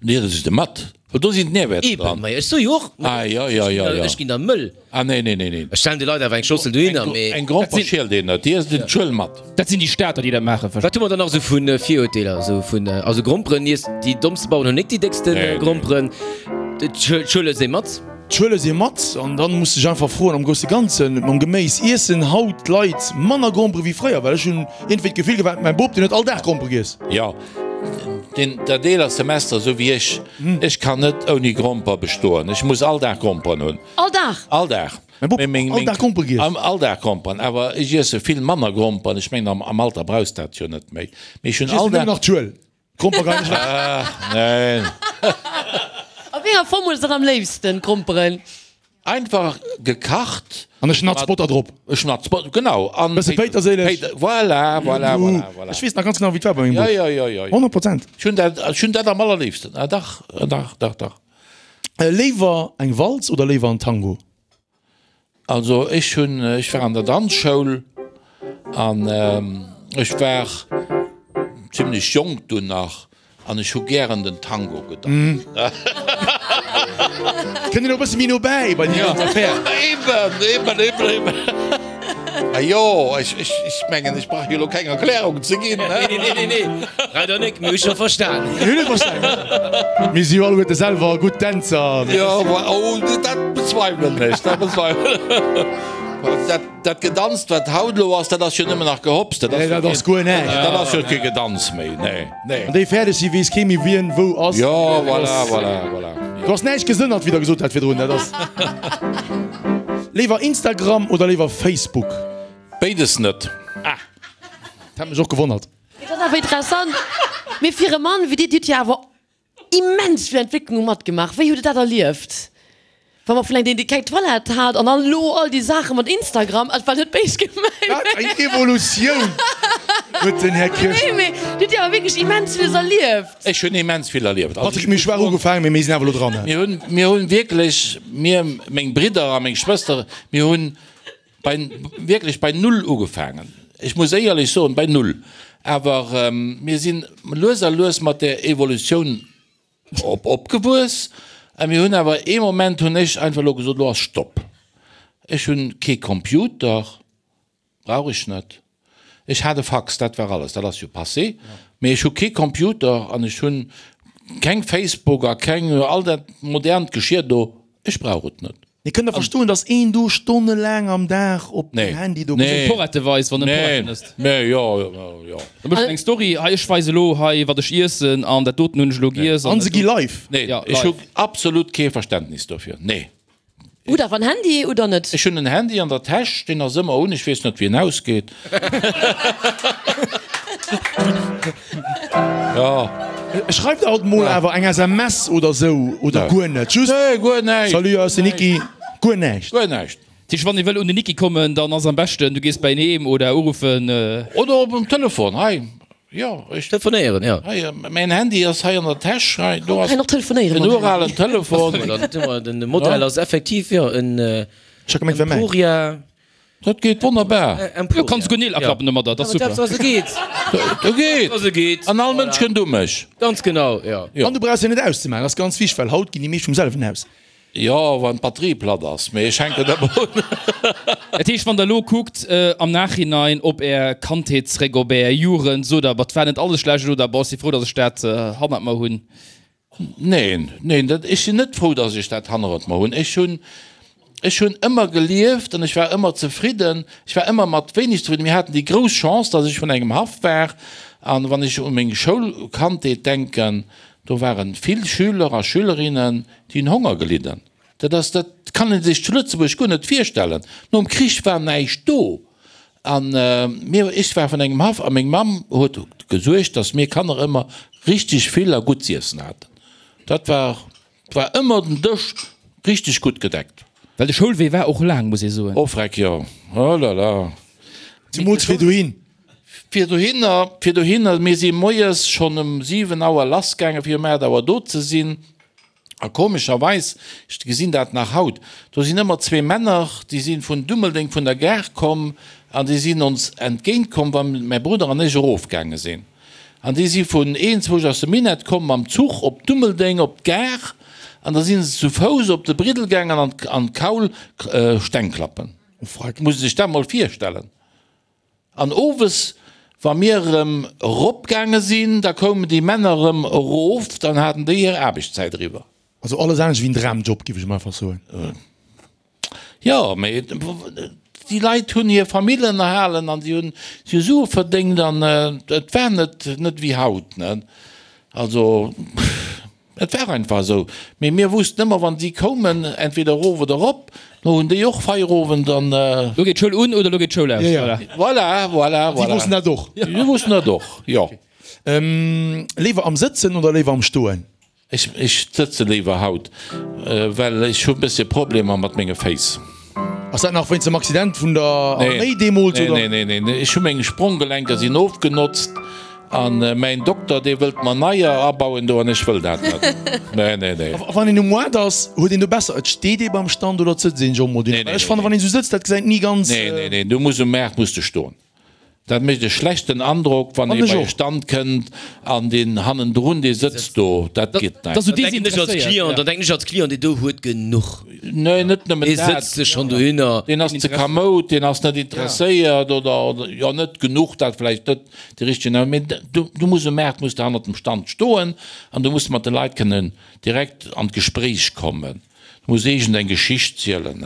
Nee, dat ass de mat, well do sinn d'Nährwäerter dran. Eben, ma ech soe jo och, Ah, jo, jo, jo, jo. ech ginn da mëll. Ah, nee, nee, nee, nee. Ech stellen de Leit awer eng Schossel dohinner, mee. Eng Gromper schielt een net, déi ësst een d'Schuel mat. Dat sinn déi Stater, déi dat maachen. Wat hu mer dann nach esou vu Virurteeler? Esou vun, also Gromperen iess, déi dommste Baueren hunn nik déi déckste Gromperen. D'Schuel ësst ee mat. D'Schuel ësst ee mat an dann muss sech einfach froen, am grousse Ganzen, mam Geméis, iessen haut d'Leit manner Grompere wéi fréier? Well ech hunn iergendwéi d'Gefill gehat, mäin Bop, deen huet all Dag Grompere giess. Jo. Deen dat eeler Semester esou wéi ech, ech kann net ouni Gromper bestoen. Ech muss all Dag Gromperen hunn. All Dag? All Dag. Mäi Bop, all Dag Grompere giess? All Dag Gromperen, awer ech iesse vill manner Gromperen. Ech mengen am Alter brauchs dat jo net méi. Mee ech hunn Ech all iessen nëmmen Dag. nach d'Schuel. D'Gromper geien ech weg. Ach neen. A wéi enger Form hues de dann am léifsten d'Gromperen? Einfach gekacht. An e Schnatz Botter drop. E Schnatz Botter, genau. An Bësse Péiterséileg. Voilà, voilà, voilà, voilà. Ech weess nach ganz genau, wéi et war bei mengem Bop. Jo, jo, jo, jo. 100%. Ech hunn dat, ech hunn dat am allerléifsten. Ah, dach, dach, dach, dach. Léiwer eng Walz oder léiwer en Tango? Also ech hunn, ech war an der Danzschoul an ech war zimlech jonk dunn nach An ech hu gären den Tango gedanzt. Kënnt een och e bësse méi no bäi bei déi ganz Affär. Eben, eben, eben, eben. Ma jo, ech, ech, ech mengen, ech brauch jo elo keng Erklärung ze ginn, ne? Nee, nee, nee, nee, leider nik, mir hu scho verstan. Mir hunn et verstan. Mir si jo alleguerte selwer gutt Dänzer. Jo, oh, dat bezweiwelen ech, dat bezweiwelen ech. Dat Gedanzt wat haut elo ass, dat ass jo nëmmen nach Gehopps, dat ass, dat ass guer näischt. Dat ass jo kee Gedanz méi, nee, nee. Wann déi fäerdeg sinn, weess kee méi wien wou ass. Jo, voilà, voilà, voilà. Do ass näischt gesënnert, wéi der gesot hat virdrun, dat ass. Léiwer Instagram oder léiwer Facebook? Béides net. Ah, dat hat mech och gewonnert. Dat ass awer interessant. Mee fir e Mann wéi dir, dir hutt jo awer Immens vill Entwécklunge matgemaach. Wéi hutt Der dat erlieft? Wa mer vun engem, deen keng Toilette hat an dann elo all déi Saache mat Instagram, et war net béis gemengt. Wat eng Evolutioun huet den Här Kirsch. Nee, mee Dir hutt jo awer wierklech immens villes erlieft. Ech hunn immens vill erlieft. Also Patrick, mir hu schwaach ugefaangen, mee mir sinn awer elo dran. Mir hunn, mir hunn wierklech, mir, meng Bridder a meng Schwëster, mir hunn bei, wierklech bei Null ugefaangen. Ech muss éierlech soen, bei Null. Awer mir sinn lues a lues mat där Evolutioun op, opgewuess. A mir hunn awer ee Moment hunn ech einfach elo gesot, elo ass Stopp. Ech hunn kee Computer, brauch ech net. Ech hat e Fax, dat war alles, dat ass jo passé. Mee ech hu kee Computer an ech hunn keng Facebook a keng, all dat modernt Geschir do, ech brauch et net. Mir kënnen der verstoen, dass een do stonnelaang am Dag op dem Handy do. Nee. Porrette weist, wann en Porretten ësst. Nee, jo, jo. Da mécht en eng Story, hei ech weise elo hei wat ech iessen an dat doten hunn ech elo giess. An se gi live. Nee, ech hu absolut kee Verständnis dofir, nee. Hutt awer en Handy oder net? Ech hunn en Handy an der Täsch, deen ass ëmmer un, ech weess net wéi en ausgeet. Jo. Schreift alt mol awer eng SMS oder sou, oder guer net? Just Nee, guer näischt. Salut, hei ass den Niki. Guer näischt. Guer näischt. Dat heescht, wann ee wëll un den Niki kommen, dann ass am beschten, du gees bei en heem oder uruffen. Oder op dem Telefon, hei, jo, ech. Telefonéieren, jo. Hei, mäin Handy ass hei an der Täsch, hei, do ass Kann och telefonéieren en mam Handy. uralen Telefon. Den Modell ass effektiv, jo, en Ech hat gemengt, wär mäin. Emporia. Dat geet wonnerbar. Jo, kanns guer Neel aklappen domadder, dat ass super. Dat geet. Dat geet. Dat geet. An all Mënsch kënnt u mech. Ganz genau, jo. An du brauchs se net auszemaachen, dat ass ganz wichteg, well haut ginn déi meescht vum selwen aus. Jo, wann d'Batterie platt ass, mee ech hänken ëmmer un. Dat heescht, wann der elo kuckt am Nachhinein op är Kandheet zréck, op är Jugend, sot der, Bah, 't war net alles schlecht oder Boah, ech si frou, datt ech dat hannert mer hunn? Neen, neen, dat, ech sinn net frou, datt ech dat hannert mer hunn. Ech hunn, ech hunn ëmmer gelieft an ech war ëmmer zefridden. Ech war ëmmer mat wéineg zefridden. Mir haten déi grouss Chance, datt ech vun engem Haff war. An wann ech u meng Schoulkandheet denken, do ware vill Schüler a Schülerinnen, déi hunn Honger gelidden. Dat ass, dat kann ee sech zu Lëtzebuerg guer net virstellen. Nom Krich war näischt do. An mir, ech war vun engem Haff a meng Mamm huet gesuergt, datt mir Kanner ëmmer richteg vill a gutt z'iessen haten. Dat war, war ëmmer den Dësch richteg gutt gedeckt. Well de Schoulwee war och laang, muss ee soen. Oh freck, jo, oh la la. Zemools fir dohin. Fir dohinner, fir dohinner, mir si moies schonn um 7 Auer lassgaangen, fir um 8 Auer do ze sinn. A komescherweis, ech gesinn dat nach haut, do sinn ëmmer zwee Männer, déi si vun Dummeldeng vun der Gare komm an déi sinn ons entgéint komm, wa mäi Brudder an ech erofgaange sinn. An déi si vun eenzwousch aus dem Minett komm mam Zuch op Dummeldeng op d'Gare an da si se zu Fouss op de Briddel gaangen an an d'Kaul Steng klappen. Muss ee sech dat mol virstellen. An owes, wa mir erëm eropgaange sinn, da koumen déi Männer erëm erof, dann haten déi hir Aarbechtszäit eriwwer. Also alles anescht wéi en Dramjob, géif ech emol einfach soen. Jo, mee déi Leit hunn hir Famill ënnerhalen an si hunn Sue verdéngt an et war net, net wéi haut, ne. Also. Et war einfach esou. Mee mir wussten ëmmer, wann si koumen, entweder erof oder erop, lo hunn déi och Feierowend an. Lo geet d'Schoul un oder lo geet d'Schoul aus. Voilà. Voilà, voilà, voilà. Si wossten dat och. Si wossten dat och, jo. Léiwer am Sëtzen oder léiwer am Stoen? Ech, ech sëtze léiwer haut, well ech hu e bëssche Problemer mat menge Féiss. Ass dat nach wéinst dem Accident vun der Arméi deemools, oder? Nee, nee, nee, nee, ech hu meng Spronggelenker sinn ofgenotzt an mäin Dokter dee wëllt mer neier abauen do an ech wëll dat net. Nee, nee, nee. A wann een um Moart ass, huet een do besser, et steet ee beim Stand oder et sëtzt een sech och mol dohinner? Well ech fannen, wann een esou sëtzt, dat gesäit ni ganz. Nee, nee, nee, du muss um Maart muss de stoen. Dat mécht e schlechten Androck, wann ee bei e Stand kënnt an deen hannendrun, dee sëtzt do. Dat geet net. Dann denken ech als Client, dann denken ech als Client, deen do huet genuch. Nee, net nëmmen dat. Dee sëtzt sech schonn dohinner. Deen ass ze kamoud, deen ass net interesséiert oder, jo, net genuch, dat vläicht net de richtegen, mee du, du muss um Maart muss de hannert dem Stand stoen an du muss mat de Leit kënnen direkt an d'Gespréich kommen. Du muss iergend eng Geschicht zielen.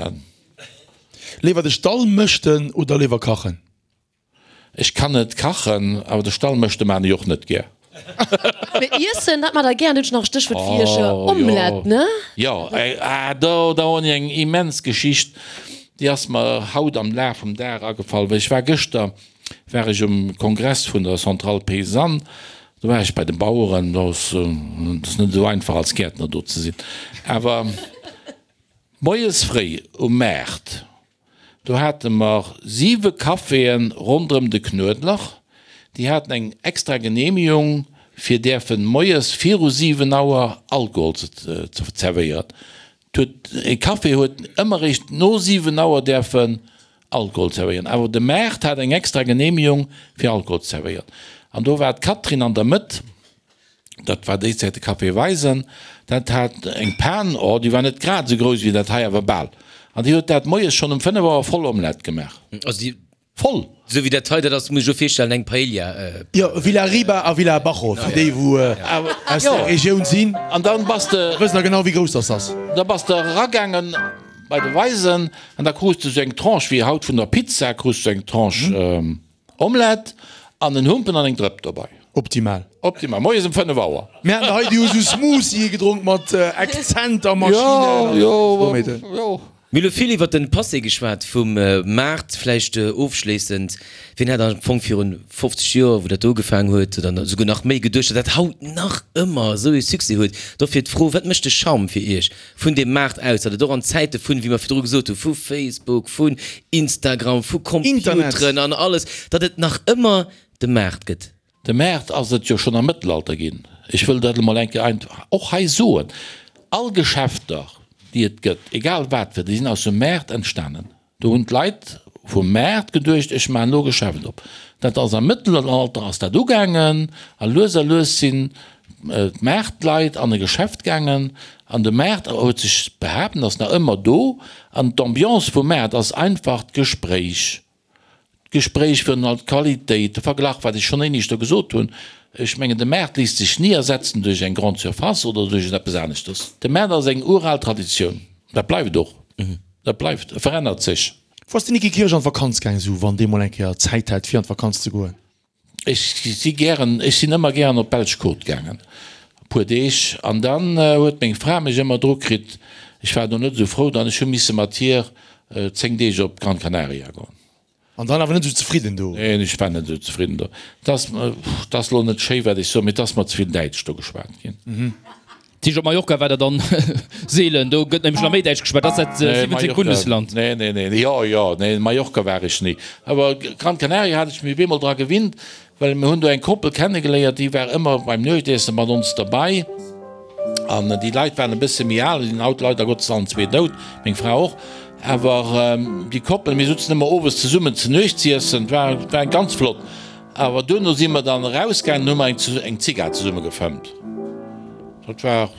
Léiwer de Stall mëschten oder léiwer kachen? Ech kann net kachen, awer de Stall mëschte maan ech och net gär. Mee iessen, dat maacht der gär. An du hues nach e Stéchwuert fir iech, Omelette, ne? Jo, ah do, do hunn ech eng immens Geschicht, déi ass mer haut am Laf vum Dag agefall, well ech war gëschter war ech um Kongress vun der Centrale Paysanne, do war ech bei de Baueren, do ass net esou einfach als Gäertner do ze sinn, awer. Moies fréi um Maart, do hate mer siwe Caféen ronderëm de Knuedler, déi haten eng extra Genehmigung fir däerfen moies viru 7 Auer Alkohol ze zerwéieren. E Café huet ëmmer eréischt no 7 Auer däerfen Alkohol zerwéieren, awer de Maart hat eng extra Genehmigung fir Alkohol ze zerwéieren. An do war d'Catherine an der Mëtt. Dat war déi Zäit de Café Weisen. Dat hat eng Pan, oh, déi war net grad esou grouss wéi dat hei, awer bal. An déi huet dat moies schonn um 5 Auer voll Omelette gemaach. Also déi. Voll! Esou wéi dat hei, dat ass, muss ech elo virstellen, eng Paella. Jo, Villa Riba a Villa Abajo, fir déi wou aus der Regioun sinn. An dann bass de. Wëssen da genau wéi grouss dass ass. Da bass de eragaangen bei de Weisen an da krus de sou eng Tranche wéi haut vun der Pizza, krus de sou eng Tranche. Omelette an en Humpen an eng Drëpp dobei. Optimal. Optimal. Moies um 5 Auer. Mir haten hei déi hu sou Smoothie gedronk mat Akzent a Maschinen. Jo, jo, jo. Mir hu lo vill iwwert den Passé geschwat vum Maart. Vläicht ofschléissend, wien hätt am Fong virun 50 Joer, wou dat do ugefaangen huet, oder esouguer nach méi, geduecht, datt dat haut nach ëmmer esou ee Succès huet? Dofir d'Fro, Wat mécht de Charme fir Iech vun deem Maart aus, datt et och an Zäite vun, wéi mer virdru gesot hunn, vu Facebook, vun Instagram, vu Computeren an alles, datt et nach ëmmer de Maart gëtt. De Maart ass et jo schonn am Mëttelalter ginn. Ech wëll dat emol eng Kéier och hei soen. All Geschäfter, déi et gëtt, egal wat fir, déi sinn aus dem Maart entstanen. Do hunn d'Leit vum Maart geduecht, ech maachen elo e Geschäft op. Dat ass am Mëttelalter ass dat ugaangen a lues a lues sinn d'Maartleit an e Geschäft gaangen an de Maart huet sech behaapt an ass nach ëmmer do. An d'Ambiance vum Maart ass einfach d'Gespréich, d'Gespréich virun allem d'Qualitéit, de Verglach, wat ech schonn éineschter gesot hunn. Ech mengen, de Maart léisst sech ni ersetzen duerch eng Grande Surface oder duerch eppes aneschters. De Maart ass eng ural Traditioun, dat bleift och. Dat bleift, e verännert sech. Wou ass de Niki Kirsch an d'Vakanz gaang, sou wann dee mol eng Kéier Zäit hat fir an d'Vakanz ze goen? Ech si gären, ech sinn ëmmer gären op d'belsch Côte gaangen, e puer Deeg, an dann huet meng Fra mech ëmmer dru kritt, ech war do net esou frou, dann ech hu misse mat hir 10 Deeg op Gran Canaria goen. An dann awer net esou zefridden do? Neen, ech war net esou zefridden do. Et ass, et ass elo net schéi wat ech soen, mee et ass mer ze vill Däitsch do geschwat ginn. Dat heescht op Mallorca war der dann seelen, do gëtt nämlech nach méi Däitsch geschwat, dat ass dat 17. Bundesland. Nee, nee, nee, jo, jo, nee, Mallorca war ech ni. Awer Gran Canaria hat ech mech op eemol dra gewinnt, well mir hunn do eng Koppel kennegeléiert, déi war ëmmer beim Nuechtiessen mat ons derbei. An déi Leit waren e bësse méi al, sinn haut leider Gottes allen zwee dout, meng Fra och. Awer déi Koppel, mir sutzen ëmmer owes zesummen ze Nuecht z'iessen, war, war ganz flott. Awer duerno si mer dann erausgaangen an hu mer eng Zigar zesumme gefëmmt. Dat war,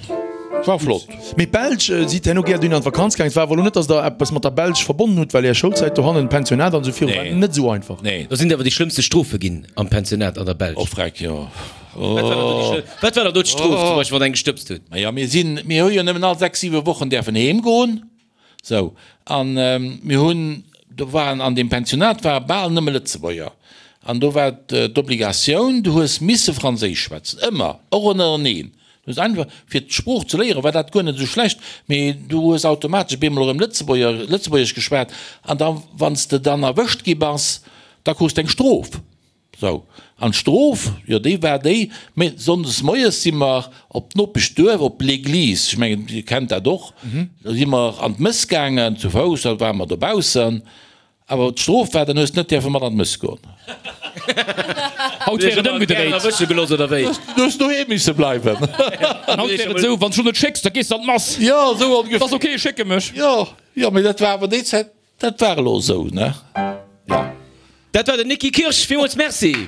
war flott. Mee d'Belsch, sidd herno gär dunn an d'Vakanz gaangen? Et war awer elo net, datt der eppes mat der Belsch verbonnen hutt, well är Schoulzäit dohannen, Pensionat an esou viru, war net esou einfach. Nee. Do sinn awer déi schlëmmste Strofe ginn am Pensionat an der Belsch. Oh freck, jo. Wat war dann do déi schlëmm, wat war dann do d'Strof zum Beispill, wann eng gestëbst huet? Maja, mir sinn, mir hu jo nëmmen all 6, 7 Wochen däerfen heem goen. Sou, an mir hunn, do waren an deem Pensionat ware bal nëmme Lëtzebuerger. An do war d'Obligatioun, du hues misse Franséisch schwätzen, ëmmer, och ënnereneen. Du hues einfach, fir d'Sprooch ze léieren, war dat guer net esou schlecht, mee du hues automatesch op eemol erëm Lëtzebuerger, Lëtzebuergesch geschwat. An da, wann s de dann erwëscht gi bass, da krus de eng Strof. Sou, an d'Strof, jo déi war déi, mä sonndes moies si mer op d'Nopeschduerf, op l'Église, ech mengen Dir kennt dat och, do si mer an d'Mëss gaangen, zu Fouss, da ware mer dobaussen, awer d'Strof war, dann hues de net däerfe mat an d'Mëss goen. Haut wär et ëmgedréit. Erwësche gelooss oder wéi? Du hues doheem misse bleiwen. An haut wär et esou, wann s du net schécks, da gees de an d'Mass. Jo, esou ongeféier. Ass ok, ech schécke mech. Jo, jo, mä dat war awer déi Zäit. Dat war elo esou, ne? Jo. Dat war den Nicki Kirsch. Villmools Merci.